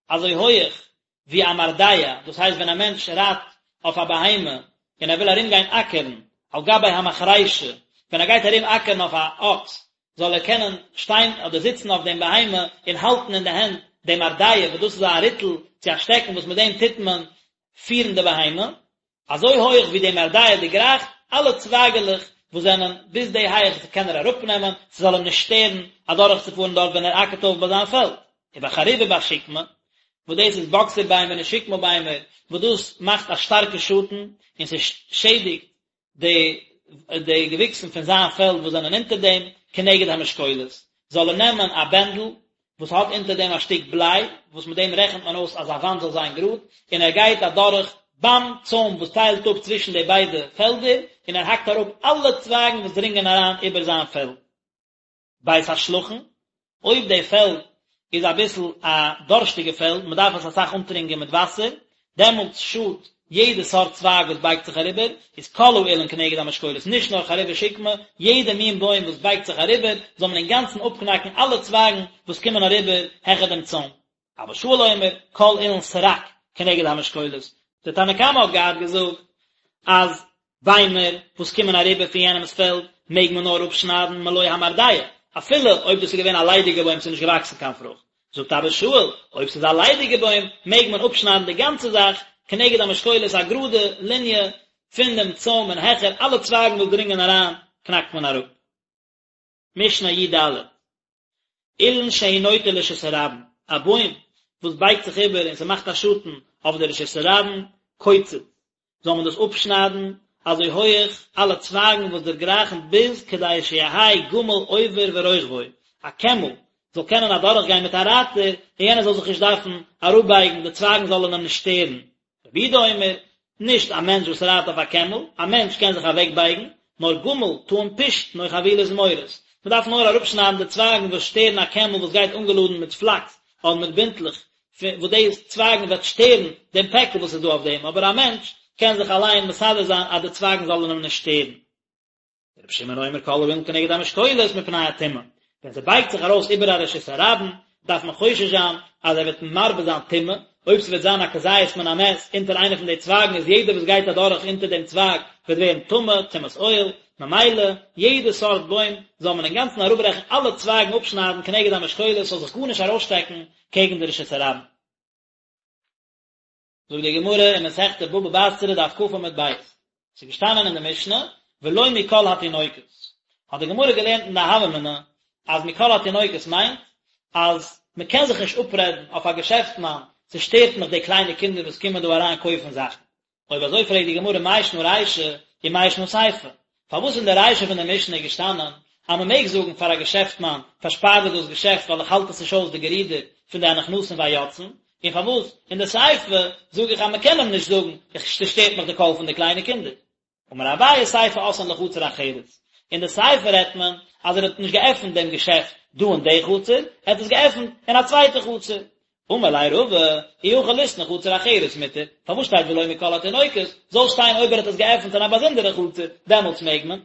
Speaker 1: אזוי הויעך ווי א מרדע, דאס הייסט ווען א מענטש רייט אויף א בהמה און ער וויל ארומגיין אקערן על גבי המחרישה, ווען ער גייט ארום אקערן אויף א אקס, זאל ער קענען שטיין אדער זיצן אויף דעם בהמה און האלטן אין די הענט דעם מרדע, וואס דאס איז א ריטל צו א שטעקן וואס מיט דעם טוט מען פירן די בהמה, אזוי הויך ווי די מרדע דערגרייכט, אלע צווייגעלעך וואס זענען ביז די הייך קען ער אראפנעמען, ס'זאל אים נישט שטערן אדורכצופארן דארט ווען ער אקערט אויף ביי זיין פעלד. ובחרוב ובשקמה, וואס דאס איז באקסער ביימער און שקמה ביימער, וואס דאס מאכט א שטארקע שאטן, און ס'שעדיגט די די געוויקסן פון זיין פעלד וואס זענען אונטער דעם, כנגד המשקולת, זאל ער נעמען א בענדל וואס האט אונטער דעם א שטיק בליי, וואס מיט דעם רעכנט מען אויס אז א וואנט זאל זיין גראד, און ער גייט אדורך ביים צוים וואס טיילט אפ צווישן די ביידע פעלדער, און ער האקט אראפ אלע צווייגן וואס דרינגען אריין איבער זיין פעלד. בית השלחין, אויב די פעלד איז אביסל א דארשטיגע פעלד, מען דארף עס אסאך אנטרינקען מיט וואסער, דעמאלטס שאדט יעדע סארט צווייג וואס בייגט זיך אריבער, איז כל האילן כנגד המשקולת, נישט נאר חרוב ושקמה, יעדע מין בוים וואס בייגט זיך אריבער, זאל מען אינגאנצן אפקנאקן אלע צווייגן וואס קומען אריבער העכער דעם צוים. אבא שאול אומר, כל אילן סרק כנגד המשקולת. דער תנא קמא האט געהאט געזאגט אז ביימער וואס קומען אריבער פון יענעמ'ס פעלד מעג מען נאר אפשניידן מלא המרדע, אפילו אויב דאס איז געווען א ליידיגע בוים ס'איז נישט געוואקסן קיין פרוכט. זאגט אבא שאול, אויב ס'איז א ליידיגע בוים מעג מען אפשניידן די גאנצע זאך, כנגד המשקולת א גראדע ליניע פון דעם צוים און העכער, אלע צווייגן וואס דרינגען אריין קנאקט מען אראפ. משנה י ד, אילן שהוא נוטה לרשות הרבים, א בוים וואס בייגט זיך איבער און ס'מאכט א שאטן אויף די רשות הרבים, קוצץ, זאל מען דאס אפשניידן אזוי הויעך אלע צווייגן וואס דערגרייכן ביז כדי שיהא גמל עובר ורוכבו, א קעמל זאל קענען אדורכגיין מיט א רייטער און יענער זאל זיך נישט דארפן אראפבייגן, די צווייגן זאלן אים נישט שטערן. רבי יהודה אומר, נישט א מענטש וואס רייט אויף א קעמל, א מענטש קען זיך אוועקבייגן, נאר גמל טעון פשתן או חבילת זמורות, מען דארף נאר אראפשניידן די צווייגן וואס שטערן א קעמל וואס גייט אנגעלאדן מיט פלאקס אדער מיט בינטלעך, וואס די צווייגן וועט שטערן דעם פעקל וואס איז דא אויף דעם, אבער א מענטש קען זיך אליין מסדר זיין אז די צווייגן זאלן אים נישט שטערן. רבי שמעון אומר כל האילן כנגד המשקולת מפני הטומאה, ווען ס'בייגט זיך ארויס איבער א רשות הרבים, דארף מען חושש זיין אז ער וועט מרבה זיין טומאה, אויב ס'וועט זיין א כזית מן המת אונטער איינע פון די צווייגן איז יעדער וואס גייט אדורך אונטער דעם צווייג וועט ווערן טמא, טומאת אוהל, ממילא יעדע סארט בוים זאל מען אינגאנצן אראפברעכן אלע צווייגן אפשניידן כנגד המשקולת ס'זאל זיך גארנישט ארויסשטעקן קעגן די רשות הרבים. זאגט די גמרא אין מסכת בבא בתרא דף כ עמוד ב', ס'איז געשטאנען אין די משנה ולא מכל התינוקות, האט די גמרא געלערנט אין די הוה אמינא אז מכל התינוקות מיינט אז מען קען זיך נישט אפרעדן אויף א געשעפטמאן, ס'שטערט מיך די קליינע קינדער וואס קומען דא אריין קויפן זאכן, אויב אזוי פרעגט די גמרא מאי שנא רישא ומאי שנא סיפא, פארוואס אין די רישא פון די משנה איז געשטאנען אז מען מעג זאגן פאר א געשעפטמאן פארשפאר דיר דאס געשעפט ווייל איך האלט עס נישט אויס די גערודער פון די הנכנסים והיוצאים, און פארוואס אין די סיפא זאג איך אז מען קען אים נישט זאגן איך ס'שטערט מיך די קול פון די קליינע קינדער. אמר אביי סיפא אתאן לחצר אחרת, אין די סיפא רעדט מען אז ער האט נישט געעפנט דעם געשעפט דא אין די חצר, ער האט עס געעפנט אין א צווייטע חצר. אמר ליה רבא, אי הכי ליתני חצר אחרת מותר, פארוואס שטייט ולא מכל התינוקות, זאל שטיין אויב ער האט עס געעפנט אין א באזונדערע חצר, דעמאלטס מעג מען.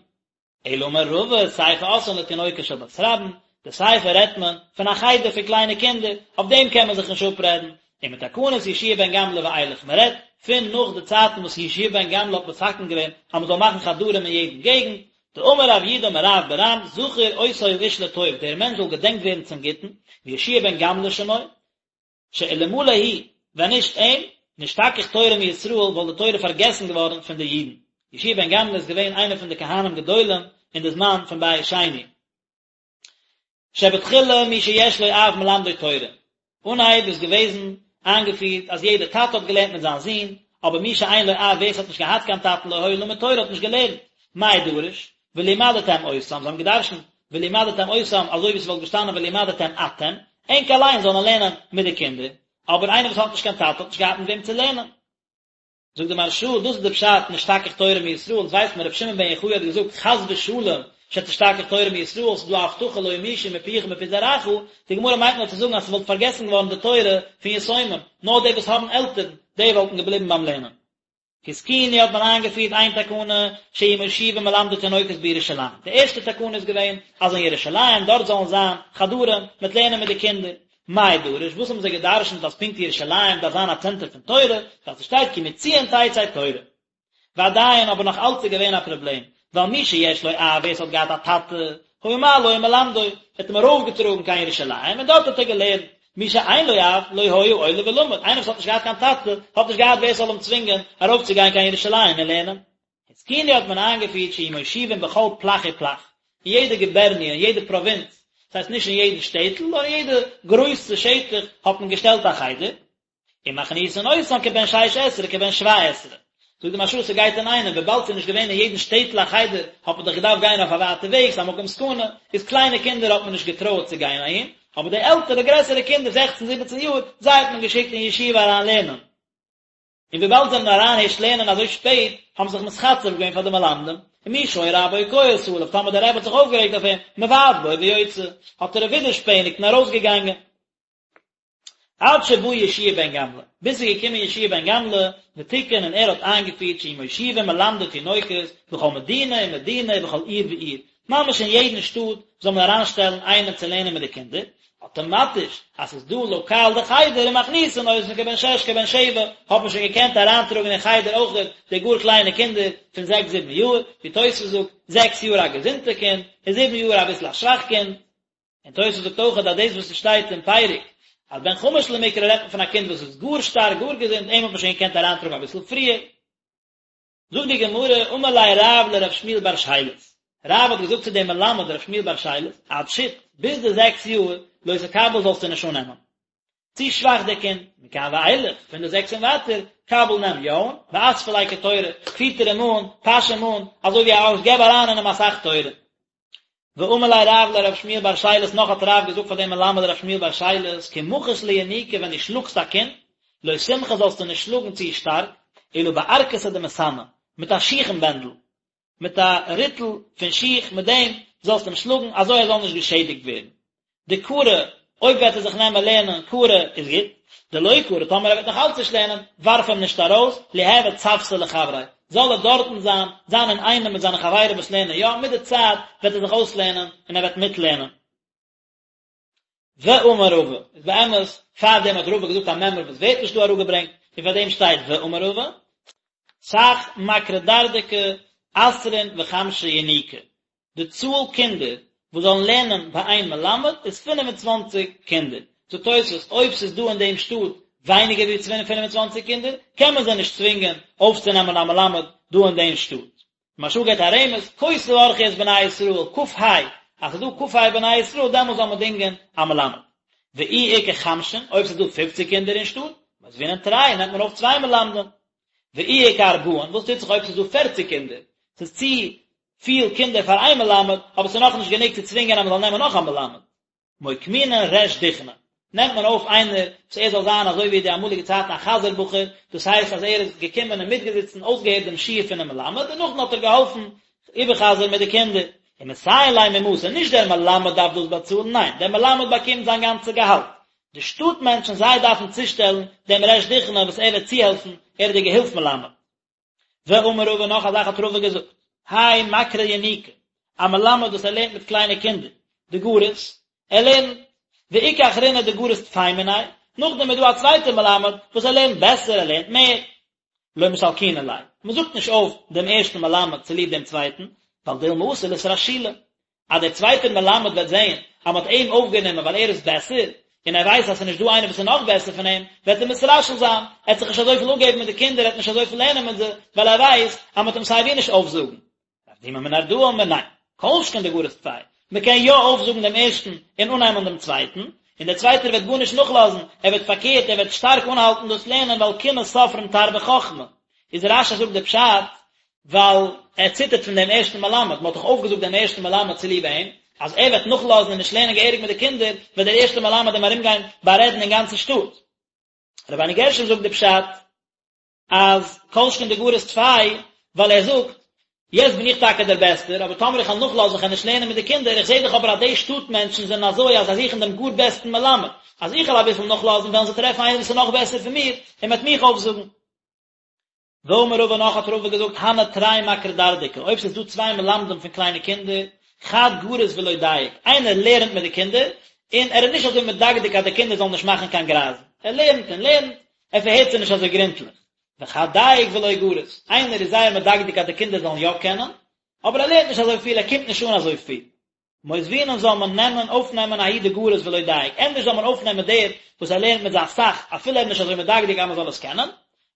Speaker 1: אלא אמר רבא, סיפא אתאן לתינוקות של בית רבן, די סיפא רעדט מען פון א חדר פון קליינע קינדער, אויף דעם קען מען זיך נישט אפרעדן, ומתקנת יהושע בן גמלא ואילך, מען רעדט פון נאך די צייטן וואס יהושע בן גמלא האט מתקן געווען אז מען זאל מאכן חדרים אין יעדן געגנט, דאמר רב יהודה אמר רב ברם זכור אותו האיש לטוב, דער מענטש זאל געדענקט ווערן צום גוטן, ויהושע בן גמלא שמו, שאלמלא הוא, ווען נישט אים, נשתכח תורה מישראל, וואלט די תורה פארגעסן געווארן פון די אידן. יהושע בן גמלא איז געווען איינער פון די כהנים גדולים אין די זמן פון בית שני. שבתחילה מי שיש לו אב מלמדו תורה. אנהייב איז געוועזן איינגעפירט אז יעדער טאטע האט געלערנט מיט זיין זון, אבער מי שאין לו אב ווער עס האט נישט געהאט קיין טאטן לא היה למד תורה האט נישט געלערנט. מאי דרוש? ולמדתם אותם, זיי האבן געדרשנט ולמדתם אותם אזוי ווי ס'וואלט געשטאנען ולמדתם אתם, ענק אליין זאלן לערנען מיט די קינדער, אבער איינער וואס האט נישט קיין טאטע האט נישט געהאט מיט וועם צו לערנען. זאגט די מהרש"א, דאס איז די פשט נשתכח תורה מישראל, אונז ווייסט מען רבי שמעון בן יוחאי האט געזאגט חס ושלום שתשתכח תורה מישראל, ס'איז דא א הבטחה לא ימושו מפיך ומפי זרעך, די גמרא מיינט נאר צו זאגן אז ס'וואלט פארגעסן געווארן די תורה פון יתומים, נאר די וואס האבן עלטערן, די וואלטן געבליבן ביים לערנען. התקינו האט מען איינגעפירט איין תקנה שיהיו מושיבים מלמדי תינוקות בירושלים, די ערשטע תקנה איז געווען אז אין ירושלים דארט זאלן זיין חדרים מיט לערנען מיט די קינדער, מאי דרוש, וואס האבן זיי גע'דרש'נט אז פונקט ירושלים דארף זיין א צענטער פון תורה, ווייל ס'שטייט כי מציון תצא תורה. ועדיין אבער נאך אלץ איז געווען א פראבלעם, ווייל מי שיש לו אב ווער ס'האט געהאט א טאטע, היה מעלו ומלמדו, ער האט אים ארויפגעטראגן קיין ירושלים און דארט האט ער געלערנט, מי שאין לו אב, לא היה עולה ולומד, איינער וואס האט נישט געהאט קיין טאטע, האט נישט געהאט ווער ס'זאל אים צווינגען ארויפצוגיין קיין ירושלים און לערנען. התקינו האט מען איינגעפירט שיהיו מושיבים בכל פלך ופלך, אין יעדע גובערניע, אין יעדע פראווינץ, דאס הייסט נישט אין יעדן שטעטל, נאר אין יעדע גרויסע שטח האט מען געשטעלט א חדר, ומכניסין אותן כבן שש עשרה כבן שבע עשרה. זאגט די מהרש"א ס'גייט אינאיינעם, וויבאלד ס'איז נישט געווען אין יעדן שטעטל א חדר, האט מען דאך געדארפט גיין אויף א ווייטע וועג, ס'איז א מקום סכנה, איז קליינע קינדער האט מען נישט געטרויעט צו גיין אהין, אבער די עלטערע גרעסערע קינדער זעכצן זיבעצן יאר, זיי האט מען געשיקט אין ישיבה אריין לערנען. און וויבאלד זיי זענען אריין הערשט לערנען אזוי שפעט, האבן זיך מתחצף געווען פאר די מלמדים, ומי שהיה רבו כועס עליו, טאמער דער רבי האט זיך אויפגערעגט אויף אים, מבעט בו ויוצא, האט ער ווידערשפעניגט און ארויסגעגאנגען. עד שבא יהושע בן גמלא, ביז ס'איז געקומען יהושע בן גמלא, ותיקן און ער האט איינגעפירט שיהיו מושיבים מלמדי תינוקות בכל מדינה ומדינה ובכל עיר ועיר, ממש אין יעדן שטאט זאל מען אריינשטעלן איינעם צו לערנען מיט די קינדער, אטאמאטיש אז ס'איז דא לאקאל די חדר ומכניסין אותן כבן שש כבן שבע, האט מען שוין געקענט אריינטראגן אין חדר אויכעט די גאר קליינע קינדער פון זעקס זיבן יאר, ווי תוספות זאגט, זעקס יאר א געזונטע קינד, און זיבן יאר אביסל א שוואך קינד. און תוס' זאגט אויך אז דאס וואס עס שטייט אין פרק אז בן חמש למקרא רעדט מען פון א קינד וואס איז גאר שטארק גאר געזונט אים האט מען שוין געקענט אריינטראגן אביסל פריער. זאגט די גמרא, אמר ליה רב לרב שמואל בר שילת, רב האט געזאגט צו דעם מלמד רב שמואל בר שילת, עד שית, ביז די זעקס יאר, לא תקבל זאלסטו נישט אננעמען. צו שוואך דער קינד, מכאן ואילך, פון די זעקס און ווייטער, קבל נעם יא אן, ואספי ליה כתורא, פיטער אים אן, פאש אים אן, אזוי ווי א אקס, געב אריין אין אים אסאך תורה. ואמר ליה רב לרב שמואל בר שילת נאך האט רב געזאגט פאר דעם מלמד רב שמואל בר שילת כי מחית לינוקא ווען דו שלאגסט א קינד לא תמחי זאלסטו נישט שלאגן צו שטארק אלא בערקתא דמסאנא מיט א שיכן בענדל מיט א ריטל פון שיך מיט דעם זאלסטו אים שלאגן אזוי ער זאל נישט געשעדיגט ווערן דקרי, אויב וועט ער זיך נעמען לערנען קרי איז גוט, דלא קרי, טאמער ער וועט נאך אלץ נישט לערנען, ווארף אים נישט ארויס, ליהוי צוותא לחבריה, זאל ער דארטן זיין, זיין אינאיינעם מיט זיינע חברים וואס לערנען יא, מיט די צייט וועט ער זיך אויסלערנען און ער וועט מיטלערנען. ואמר רבא, איז באמת, פארדעם האט רבא געזאגט א מימרא וואס ווערט נישט דא אראפגעברענגט, און פארדעם שטייט ואמר רבא, סך מקרי דרדקי עשרין וחמשא ינוקי, די צאל קינדער וואס זאלן לערנען ביי איין מלמד איז 25 קינדער. זאגט תוספות, אויב ס'איז דא אין דעם שטאט ווייניגער ווי 25 קינדער, קען מען זיי נישט צווינגען אויפצונעמען א מלמד דא אין דעם שטאט. מהרש"א געבט א רמז, כה תברכו את בני ישראל, כ"ה, אז ס'איז דא כ"ה בני ישראל דעמאלס זאל מען דינגען א מלמד. ואי איכא חמשין, אויב ס'איז דא פופציג קינדער אין שטאט, מותבינן תרי, נעמט מען אויף צוויי מלמדים. ואי איכא ארבעין, וואס טוט זיך אויב ס'איז דא פערציג קינדער? ס'איז צו פיל קינדער פאר איין מלמד, אבער ס'איז נאכנישט גענוג צו צווינגען אז מ'זאל נעמען נאך א מלמד. מוקמינן ריש דוכנא, נעמט מען אויף איינער וואס ער זאל זיין אזוי ווי די אמאליגע צייטן א חזיר בחור, דאס הייסט אז ער איז געקומען און מיטגעזיצן אויסגעהערט דעם שיעור פונעם מלמד און נאכדעם האט ער געהאלפן איבערחזר'ן מיט די קינדער. ומסייעין ליה ממתא, נישט דער מלמד דארף דאס באצאלן, ניין, דער מלמד באקומט זיין גאנצע געהאלט, די שטאט מענטשן זיי דארפן צושטעלן דעם ריש דוכנא וואס ער וועט צוהעלפן, ער איז דער געהילף מלמד. ואמר רבא נאך א זאך האט רבא געזאגט, האי מקרי ינוקי, א מלמד וואס ער לערנט מיט קליינע קינדער, דגריס, ער לערנט, ואיכא אחרינא דגריס טפי מיניה, נאכדעם איז דא א צווייטער מלמד וואס ער לערנט בעסער, ער לערנט מער, לא מסלקינן ליה, מען זאגט נישט אויף דעם ערשטן מלמד צוליב דעם צווייטן, ווייל דילמא אתי לאתרשולי, אז דער צווייטער מלמד וועט זען אז מען האט אים אויפגענומען ווייל ער איז בעסער, און ער ווייסט אז ס'איז נישט דא איינער וואס איז נאך בעסער פון אים, וועט ער מתרשל זיין, ער וועט זיך נישט אזויפיל אפגעבן מיט די קינדער, ער וועט נישט אזויפיל לערנען מיט זיי, ווייל ער ווייסט אז מען וועט אים סיי ווי נישט אויפזאגן. רב דימי מנהרדעא אמר ניין, כל שכן דגריס טפי, מען קען יא אויפזאגן דעם ערשטן און אננעמען דעם צווייטן, און דער צווייטער וועט גארנישט נאכלאזן, ער וועט פארקערט, ער וועט שטארק אנהאלטן דאס לערנען ווייל קנאת סופרים תרבה חכמה. איז רש"י זאגט די פשט, ווייל ער ציטערט פון דעם ערשטן מלמד, מען האט דאך אויפגעזאגט דעם ערשטן מלמד צוליב אים, אז ער וועט נאכלאזן און נישט לערנען געהעריג מיט די קינדער, וועט דער ערשטער מלמד אים ארומגיין בארעדן אין גאנצן שטאט. רבינו גרשום זאגט די פשט, אז כל שכן דגריס טפי, ווייל ער זאגט, יעצט בין איך טאקע דער בעסטער, אבער טאמער איך וועל נאכלאזן איך וועל נישט לערנען מיט די קינדער, איך זע דאך אבער אז די שטאט מענטשן זענען אזוי אז זיי זוכן דעם גאר בעסטן מלמד, אז איך וועל אביסל נאכלאזן וועלן זיי טרעפן איינער וואס איז נאך בעסער פון מיר, און מען וועט מיך אויפזאגן. ואמר רבא נאך האט רבא געזאגט הני תרי מקרי דרדקי, אויב ס'איז דא צוויי מלמדים פון קליינע קינדער, חד גריס ולא דייק, איינער לערנט מיט די קינדער, און ער איז נישט אזוי מדקדק אז די קינדער זאלן נישט מאכן קיין גרייזן, ער לערנט און לערנט, ער פארהערט זיי נישט אזוי גרונטליך. וחד דייק ולא גריס, איינער איז זייער מדקדק אז די קינדער זאלן יא קענען, אבער ער לערנט נישט אזוי פיל, ער קומט נישט אן אזוי פיל. מותבינן זאל מען נעמען, אויפנעמען ההוא דגריס ולא דייק, ענדערש זאל מען אויפנעמען דער וואס ער לערנט מיט זיי אסאך, אפילו ער איז נישט אזוי מדקדק אז מען זאל עס קענען,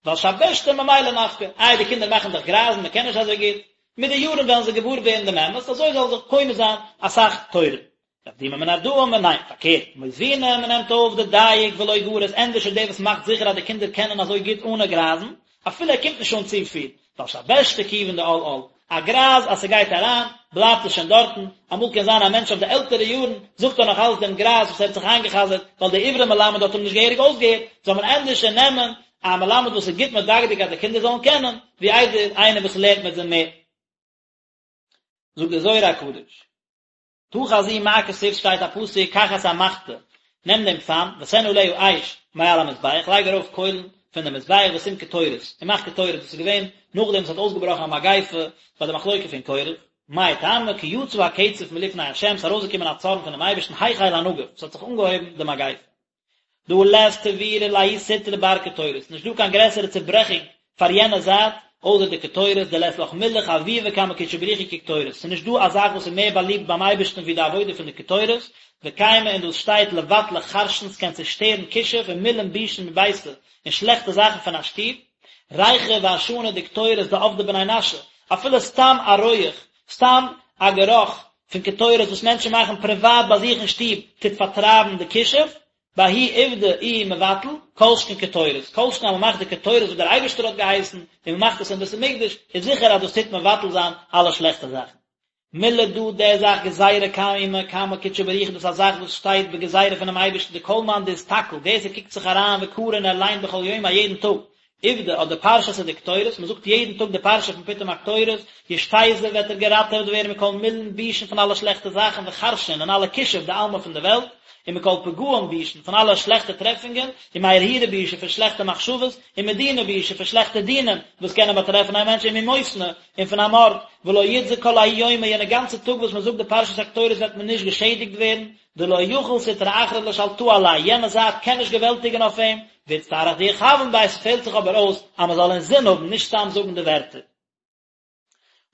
Speaker 1: ווייל שבשתא ממילא נפקא, איי די קינדער מאכן דאך גרייזן, מען קען נישט אזוי גוט, מיט די יארן וועלן זיי געוואר ווערן דעם אמת, אזוי זאל זיך קונה זיין אסאך תורה. רב דימי מנהרדעא אמר ניין, פארקערט, מותבינן מען נעמט אויף דדייק ולא גריס, ענדערש איז דער וואס מאכט זיכער אז די קינדער קענען אזוי גוט אנע גרייזן, אפילו ער קומט נישט אן צופיל, ווייל שבשתא כיון דעל על, א גרייז אז ס'גייט אריין, בלייבט עס שוין דארטן, אמאל קען זיין א מענטש אויף די עלטערע יארן, זאגט ער נאך אלץ דעם גרייז וואס ער האט זיך איינגע'חזר'ט, ווייל דער עברי מלמד האט אים נישט געהעריג אויסגעהערט, זאל מען ענדערש נעמען א מלמד וואס איז גוט מדקדק אז די קינדער זאלן קענען, ווי איידער איינער וואס לערנט מיט זיי מער. זאגט דער זוהר הקדוש. תא חזי מה כתיב שטייט א פסוק קח את המחתה נעם דעם פאן ותן עליה אש מעל המזבח לייג ארויף קוילן פון דעם מזבח ושים קטורת און מאך קטורת דאס איז געווען נאכדעם וואס האט אויסגעבראכן א מגיפה ביי די מחלוקה פון קורח מאי טעמא כי יצא הקצף מלפני ה' ס'איז ארויסגעקומען א צארן פונעם אייבערשטן החל הנגף ס'האט זיך אנגעהויבן די מגיפה. דהא לית תבירא לההוא סטרא בר קטורת, נישט דא קיין גרעסערע צוברעכונג פאר יענע זייט. אויסער די קטורת, דלית לך מילה חביבא קמי קודשא בריך הוא כקטורת, ס'איז נישט דא א זאך וואס איז מער באליבט ביים אייבערשטן ווי די עבודה פון די קטורת, וקיימא און דאס שטייט לבטלא חרשין ס'קען צושטערן כישוף ומילין בישין מביתא און שלעכטע זאכן פון א שטוב, ריחא ועשנא דקטורת דעבדי בני נשא, אפילו סתם א רויעך, סתם א גערוך פון קטורת וואס מענטשן מאכן פריוואט ביי זיך אין שטוב טוט פארטרייבן די כישוף, בההוא עובדא איהו מבטל, כל שכן קטורת, כל שכן אז מען מאכט די קטורת וואס דער אייבערשטער האט געהייסן, און מען מאכט עס אין בית המקדש, איז זיכער אז דאס טוט מבטל זיין אלע שלעכטע זאכן. מילה דא די זאך גזירה קיימא קמי קודשא בריך הוא דאס איז א זאך וואס שטייט בגזירה פונעם אייבערשטן דכל מאן דאסתכל ווער ס'קוקט זיך אריין וקרי און ער ליינט בכל יומא יעדן טאג עובדא אט די פרשתא דקטורת, מען זאגט יעדן טאג די פרשה פון פיטום הקטורת, ישתזיב וועט ער געראטעוועט ווערן מכל מילין בישין פון אלע שלעכטע זאכן וחרשין און אלע כישוף דעלמא פון די וועלט, ומכל פגעין בישין פון אלע שלעכטע טרעפונגען, ומהרהורא בישא פון שלעכטע מחשבות, ומדינא בישא פון שלעכטע דינים וואס קענען באטרעפן א מענטש וממותנא און פון א מארד, ולא יתזק כל ההוא יומא יענע גאנצע טאג וואס מען זאגט די פרשת הקטורת וועט מען נישט געשעדיגט ווערן, דלא יכיל סטרא אחרא לשלטאה עליה, יענע זייט קען נישט געוועלטיגן אויף אים, ואיצטריך דיכוין ביה, ס'פעלט זיך אבער אויס אז מען זאל אינזין האבן, נישט סתם זאגן די ווערטער.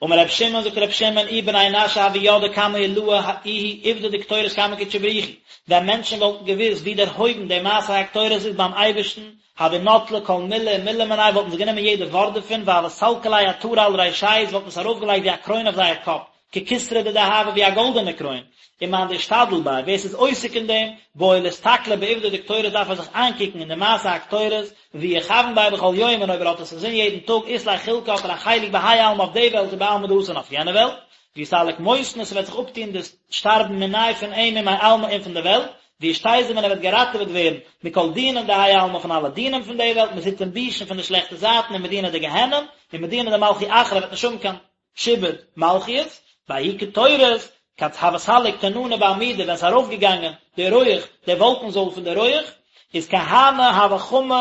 Speaker 1: אמר רבי שמעון, זאגט רבי שמעון, אי בני נשא הוו ידעי כמה עילאה איהו עובדא דקטורת קמי קודשא בריך הוא, ווען מענטשן וואלטן געוואוסט ווי דערהויבן די מעשה הקטורת איז ביים אייבערשטן, הוו נטלי כל מילה ומילה מיניה וואלטן זיי גענומען יעדע ווארט דערפון והוו סלקי ליה עטרה על רישייהו זיי וואלטן עס ארויפגעלייגט ווי א קרוין אויף זייער קאפ, ככתרא דדהבא ווי א גאלדענע קרוין, ומאן דאשתדיל ביה, ווער ס'איז עוסק אין דעם, בעי לאסתכלא בעובדא דקטורת דארף ער זיך איינקוקן אין די מעשה הקטורת, ואי יכוין ביה בכל יום און אויב ער האט עס אינזין יעדן טאג אית ליה חולקא האט ער א חלק בהאי עלמא אויף די וועלט ובעלמא דאתי און אויף יענע וועלט, ויסתלק מותנא ס'וועט זיך אפטון דאס שטארבן מיניה פון אים ומעלמא און פון די וועלט, וישתזיב און ער וועט געראטעוועט ווערן מכל דינין דהאי עלמא פון אלע דינים פון די וועלט מסיטין בישין פון די שלעכטע זייטן ומדינא דגיהנם ומדינא דמלכי אחרא וועט נישט האבן קיין שעבוד מלכיות, בההיא קטורת, כד הוה סליק תננא בעמודא ווען ס'איז ארויפגעגאנגען די רויעך, די וואלקן זויל פון די רויעך, איז כהני הוו חמי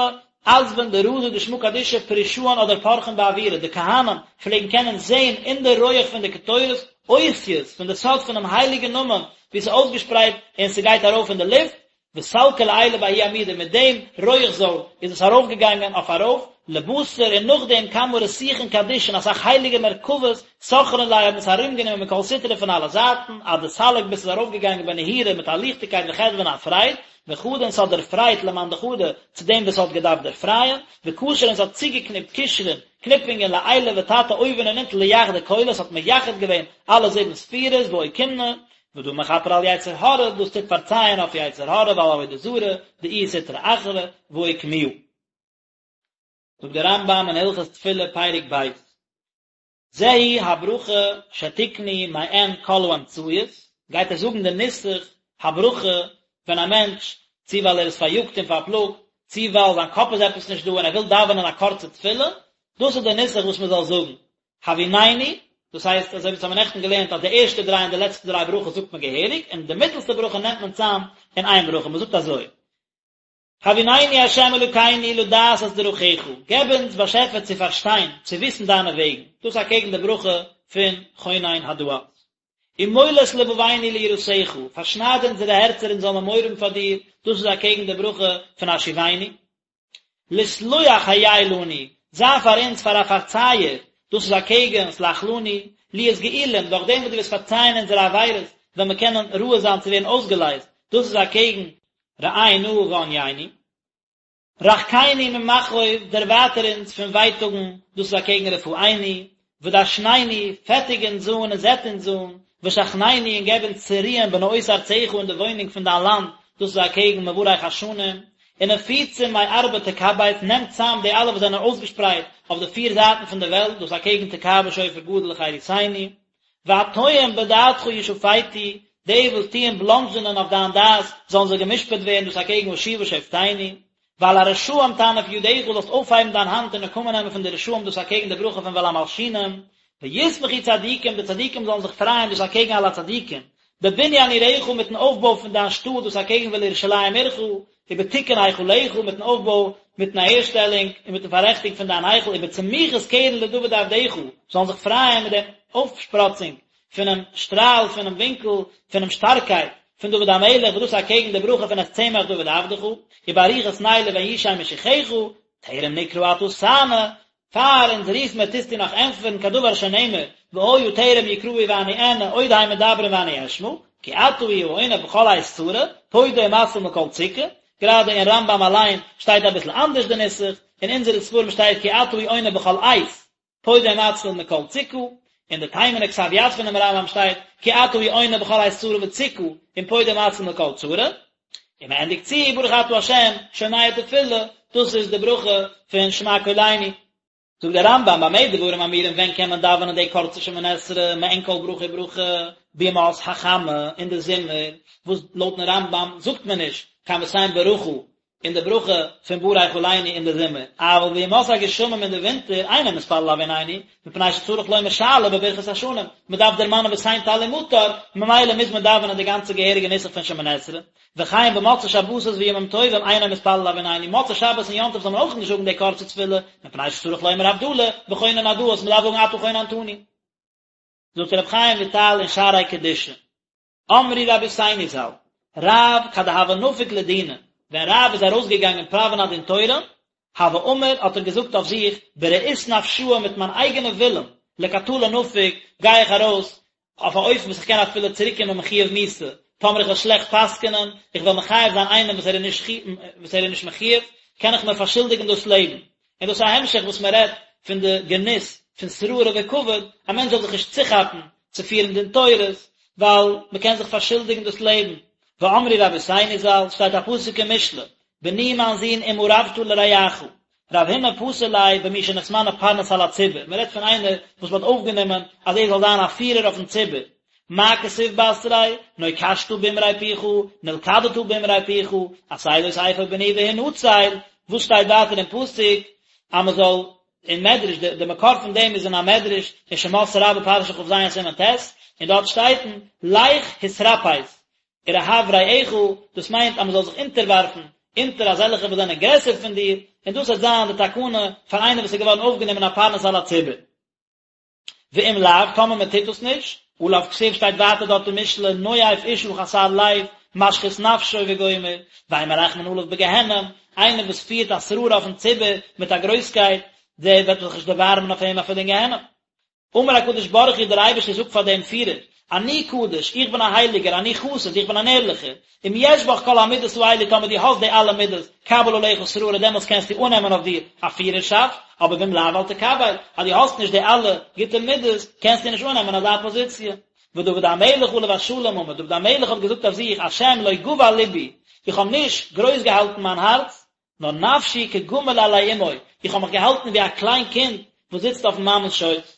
Speaker 1: עזבין דרזא דשמא קדישא פרישאן אדער פרחין באוירא, די כהנים פלעגן קענען זעהן אין די רויעך פון די קטורת אותיות פון די סוד פונעם הייליגן נאמען ווי ס'איז אויסגעשפרייט און ס'גייט ארויף אין די לופט, וסלקא לעילא בההוא עמודא, מיט דעם רויעך זויל איז עס ארויפגעגאנגען אויף ארויף, לבתר און נאכדעם כמה רתיכין קדישין אסאך הייליגע מרכבות סכרן ליה האבן עס ארומגענומען מכל סטרא פון אלע זייטן, עד דסליק ביז ס'איז ארויפגעגאנגען בנהירו מיט א ליכטיגקייט וחדוה און א פרייד, וחדא און ס'האט דערפרייט למאן דחדא צו דעם וואס האט געדארפט דערפרייען, וקשר און ס'האט צוגעקניפט קשרין, קניפונגען לעילא ותתא אויבן און אונטן ליחדא כולא, ס'האט מייחד געווען אלע זיבן ספירות ואוקימנא, ודא מכפר על יצר הרע, דאס טוט פארצייען אויף יצר הרע ועל עבודה זרה, דאיהו סטרא אחרא, ואוקמוה. זאגט דער רמב"ם אין הלכות תפילה פרק ב', זוהי הברכה שתקנו מעין כל האמצעיות, גייט ער זאגן די נוסח הברכה ווען א מענטש, צו ווייל ער איז פאריאגט און פארפלאגט, צו ווייל זיין קאפ איז עפעס נישט דא און ער וויל דאווענען א קורצע תפילה, דאס איז די נוסח וואס מען זאל זאגן, הביננו, דאס הייסט אזוי ווי אונז האבן נעכטן געלערנט אז די ערשטע דריי און די לעצטע דריי ברכות זאגט מען געהעריג, און די מיטלסטע ברכה נעמט מען צאם אין איין ברכה, מען זאגט אזוי, הביננו ה' אלוקינו לדעת את דרכיך, געב אונז באשעפער צו פארשטיין, צו וויסן דיינע וועגן, דאס אקעגן די ברכה פון חונן הדעת. ומול את לבבינו ליראתך, פארשנייד אונזערע הערצער אונז זאל מען מורא האבן פאר דיר, דאס איז אקעגן די ברכה פון השיבנו. לסלוח היה לנו, זיי פאר אונז פאר א פארצייער, דאס איז אקעגן סלח לנו, להיות גאולים, דורך דעם וואס דו וועסט פארצייען אונזערע עבירות, וועלן מיר קענען ראוי זיין צו ווערן אויסגעלייזט, דאס איז אקעגן ראה נא וענינו. רחקנו ממכאוב, דערווייטער אונז פון ווייטאגן, דאס איז אקעגן רפאנו, ודשננו, פעטיג אונז אן און זעט אונז אן, ושכננו, און געב אונז צו רוען בנאות ארצך אין די וואוינונג פון דיין לאנד, דאס איז אקעגן מברך השנים, ונפוצים מארבע תקבץ, נעם צאם די אלע וואס זענען אויסגעשפרייט אויף די פיר זייטן פון די וועלט, דאס איז אקעגן תקע בשופר גדול לחירותנו, והטועים בדעתך ישפטו, די וואס טוען בלאנדזשענען אויף דיין דעת, זאלן זיי גע'משפט ווערן, דאס אקעגן השיבה שופטינו, ועל הרשעים תנף ידך, זאלסט אויפהייבן דיין האנט און נקמה נעמען פון די רשעים, דאס אקעגן די ברכה פון ועל המלשינים, וישמחו צדיקים, די צדיקים זאלן זיך פרייען, דאס אקעגן על הצדיקים, בבניין עירך, מיטן אויפבוי פון דיין שטאט, דאס אקעגן ולירושלים עירך, ובתיקון היכלך, מיטן אויפבוי, מיטן אהערשטעלונג, און מיטן פאררעכטונג פון דיין היכל, ובצמיחת קרן לדוד עבדך, זאלן זיך פרייען מיט דעם אויפשפראצונג פונעם שטראל, פונעם ווינקל, פונעם שטארקייט, פון דוד המלך, וואס דאס איז אקעגן די ברכה פון את צמח דוד עבדך, ובארוכות נר לבן ישי משיחך, טרם נקרא אתה תענה. פאר אונז רוף מיר טוסטו נאך ענטפערן כדבר שנאמר והיה טרם יקראו ואני אענה עוד הם מדברים ואני אשמע, כי אתה הוא העונה בכל עת צרה, פודה ומציל מכל צוקה, גראדע אין רמב"ם אליין שטייט אביסל אנדערש די נוסח, אין אונזערע ספרים שטייט כי אתה הוא העונה בכל עת, פודה ומציל מכל צוקה, אין די תימן'ע כתב יד פונעם רמב"ם שטייט כי אתה הוא העונה בכל עת צרה וצוקה, און פודה ומציל מכל צרה, און מען ענדיגט צו ברוך אתה ה' שומע תפילה, דאס איז די ברכה פון שמע קולנו. זאגט דער רמב"ם במה דברים אמורים ווען קען מען דאווענען די קורצע שמונה עשרה מעין כל ברכה וברכה בימות החמה אין די זומער, וואס לויטן רמב"ם זאגט מען נישט קיין ותן ברכה אין די ברכה פון ברך עלינו אין די זומער, אבל בימות הגשמים אין די ווינטער אינו מתפלל הביננו, מפני שצריך לומר שאלה בברכת השנים, מען דארף דערמאנען ותן טל ומטר, ממילא מוז מען דאווענען די גאנצע געהעריגע נוסח פון שמונה עשרה, וכן במוצאי שבתות וימים טובים אינו מתפלל הביננו, מוצאי שבת און יום טוב זאל מען אויך נישט זאגן די קורצע תפילה, מפני שצריך לומר הבדלה, וחונן הדעת, מען דארף זאגן אתה חוננתנו. זאגט רבי חיים וויטאל אין שערי קדושה. אמרו רבותינו ז"ל, רב כד הוה נפיק לדינא, ווען רב איז ארויסגעגאנגען פראווען א דין תורה, הוה אמר האט ער געזאגט אויף זיך, ברעות נפשאי מיט מיין אייגענע ווילן, לקטלא נפיק, גיי איך ארויס, אויף א אופן וואס איך קען אפילו צוריקקומען מחויב מיתה, טאמער איך וועל שלעכט פסק'נען, איך וועל מחייב זיין איינעם וואס ער איז נישט וואס ער איז נישט מחויב, קען איך מיר פארשולדיגן דאס לעבן. און דאס איז א המשך וואס מען רעדט פון די גנות פון שררה וכבוד, א מענטש זאל זיך נישט צוכאפן צו פירן דין תורות, ווייל מען קען זיך פארשולדיגן דאס לעבן. ואמרו רבותינו ז"ל, שטייט א פסוק אין משלי, בני מיין זון אם ערבת לרעך, רב הונא פתר ליה במי שנתמנה פרנס על הציבור, מען רעדט פון איינער וואס מען האט אויפגענומען אז ער זאל זיין א פירער אויפן ציבור, מה כתיב בתריה, נוקשת באמרי פיך, נלכדת באמרי פיך, עשה זאת אפוא בני והנצל, וואס שטייט ווייטער אין פסוק אז מען זאל, אין מדרש, די מקור פון דעם איז אין א מדרש אין שמות רבה פרשה כ"ז סימן ט', און דארט שטייט לך התרפס ורהב רעך, דאס מיינט אז מען זאל זיך אונטערווארפן אונטער אזעלכע וואס זענען גרעסער פון דיר, און דאס וועט זיין די תקנה פאר איינער וואס איז געווארן אויפגענומען א פרנס על הציבור. ואם לאו, טאמער מען טוט דאס נישט, עליו כתיב שטייט ווייטער דארט אין משלי, נואף אשה חסר לב, משחית נפשו וגומר, ואין מרחמין עליו בגיהנום, איינער וואס פירט א שררה אויפן ציבור מיט א גרויסקייט, דער וועט זיך נישט דערבארעמען אויף אים אפילו אין גיהנום. אמר הקדוש ברוך הוא דער אייבערשטער זאגט פאר דעם פירער, אני קדוש, איך בין א הייליגער, אני חסיד, איך בין אן ערליכער, אם יש בך כל המידות האלו טאמער דו האסט די אלע מידות, קבל עליך שררה דעמאלטס קענסטו אננעמען אויף דיר א פירערשאפט, אבער ואם לאו אל תקבל, אז דו האסט נישט די אלע גוטע מידות, קענסטו נישט אננעמען אזא פאזיציע. ודוד המלך עליו השלום אמר, דוד המלך האט געזאגט אויף זיך, השם לא גבה לבי, איך האב נישט גרויס געהאלטן מיין הארץ, נאר נפשי כגמול עלי אמו, איך האב מיך געהאלטן ווי א קליין קינד וואס זיצט אויפן מאמע'ס שויס.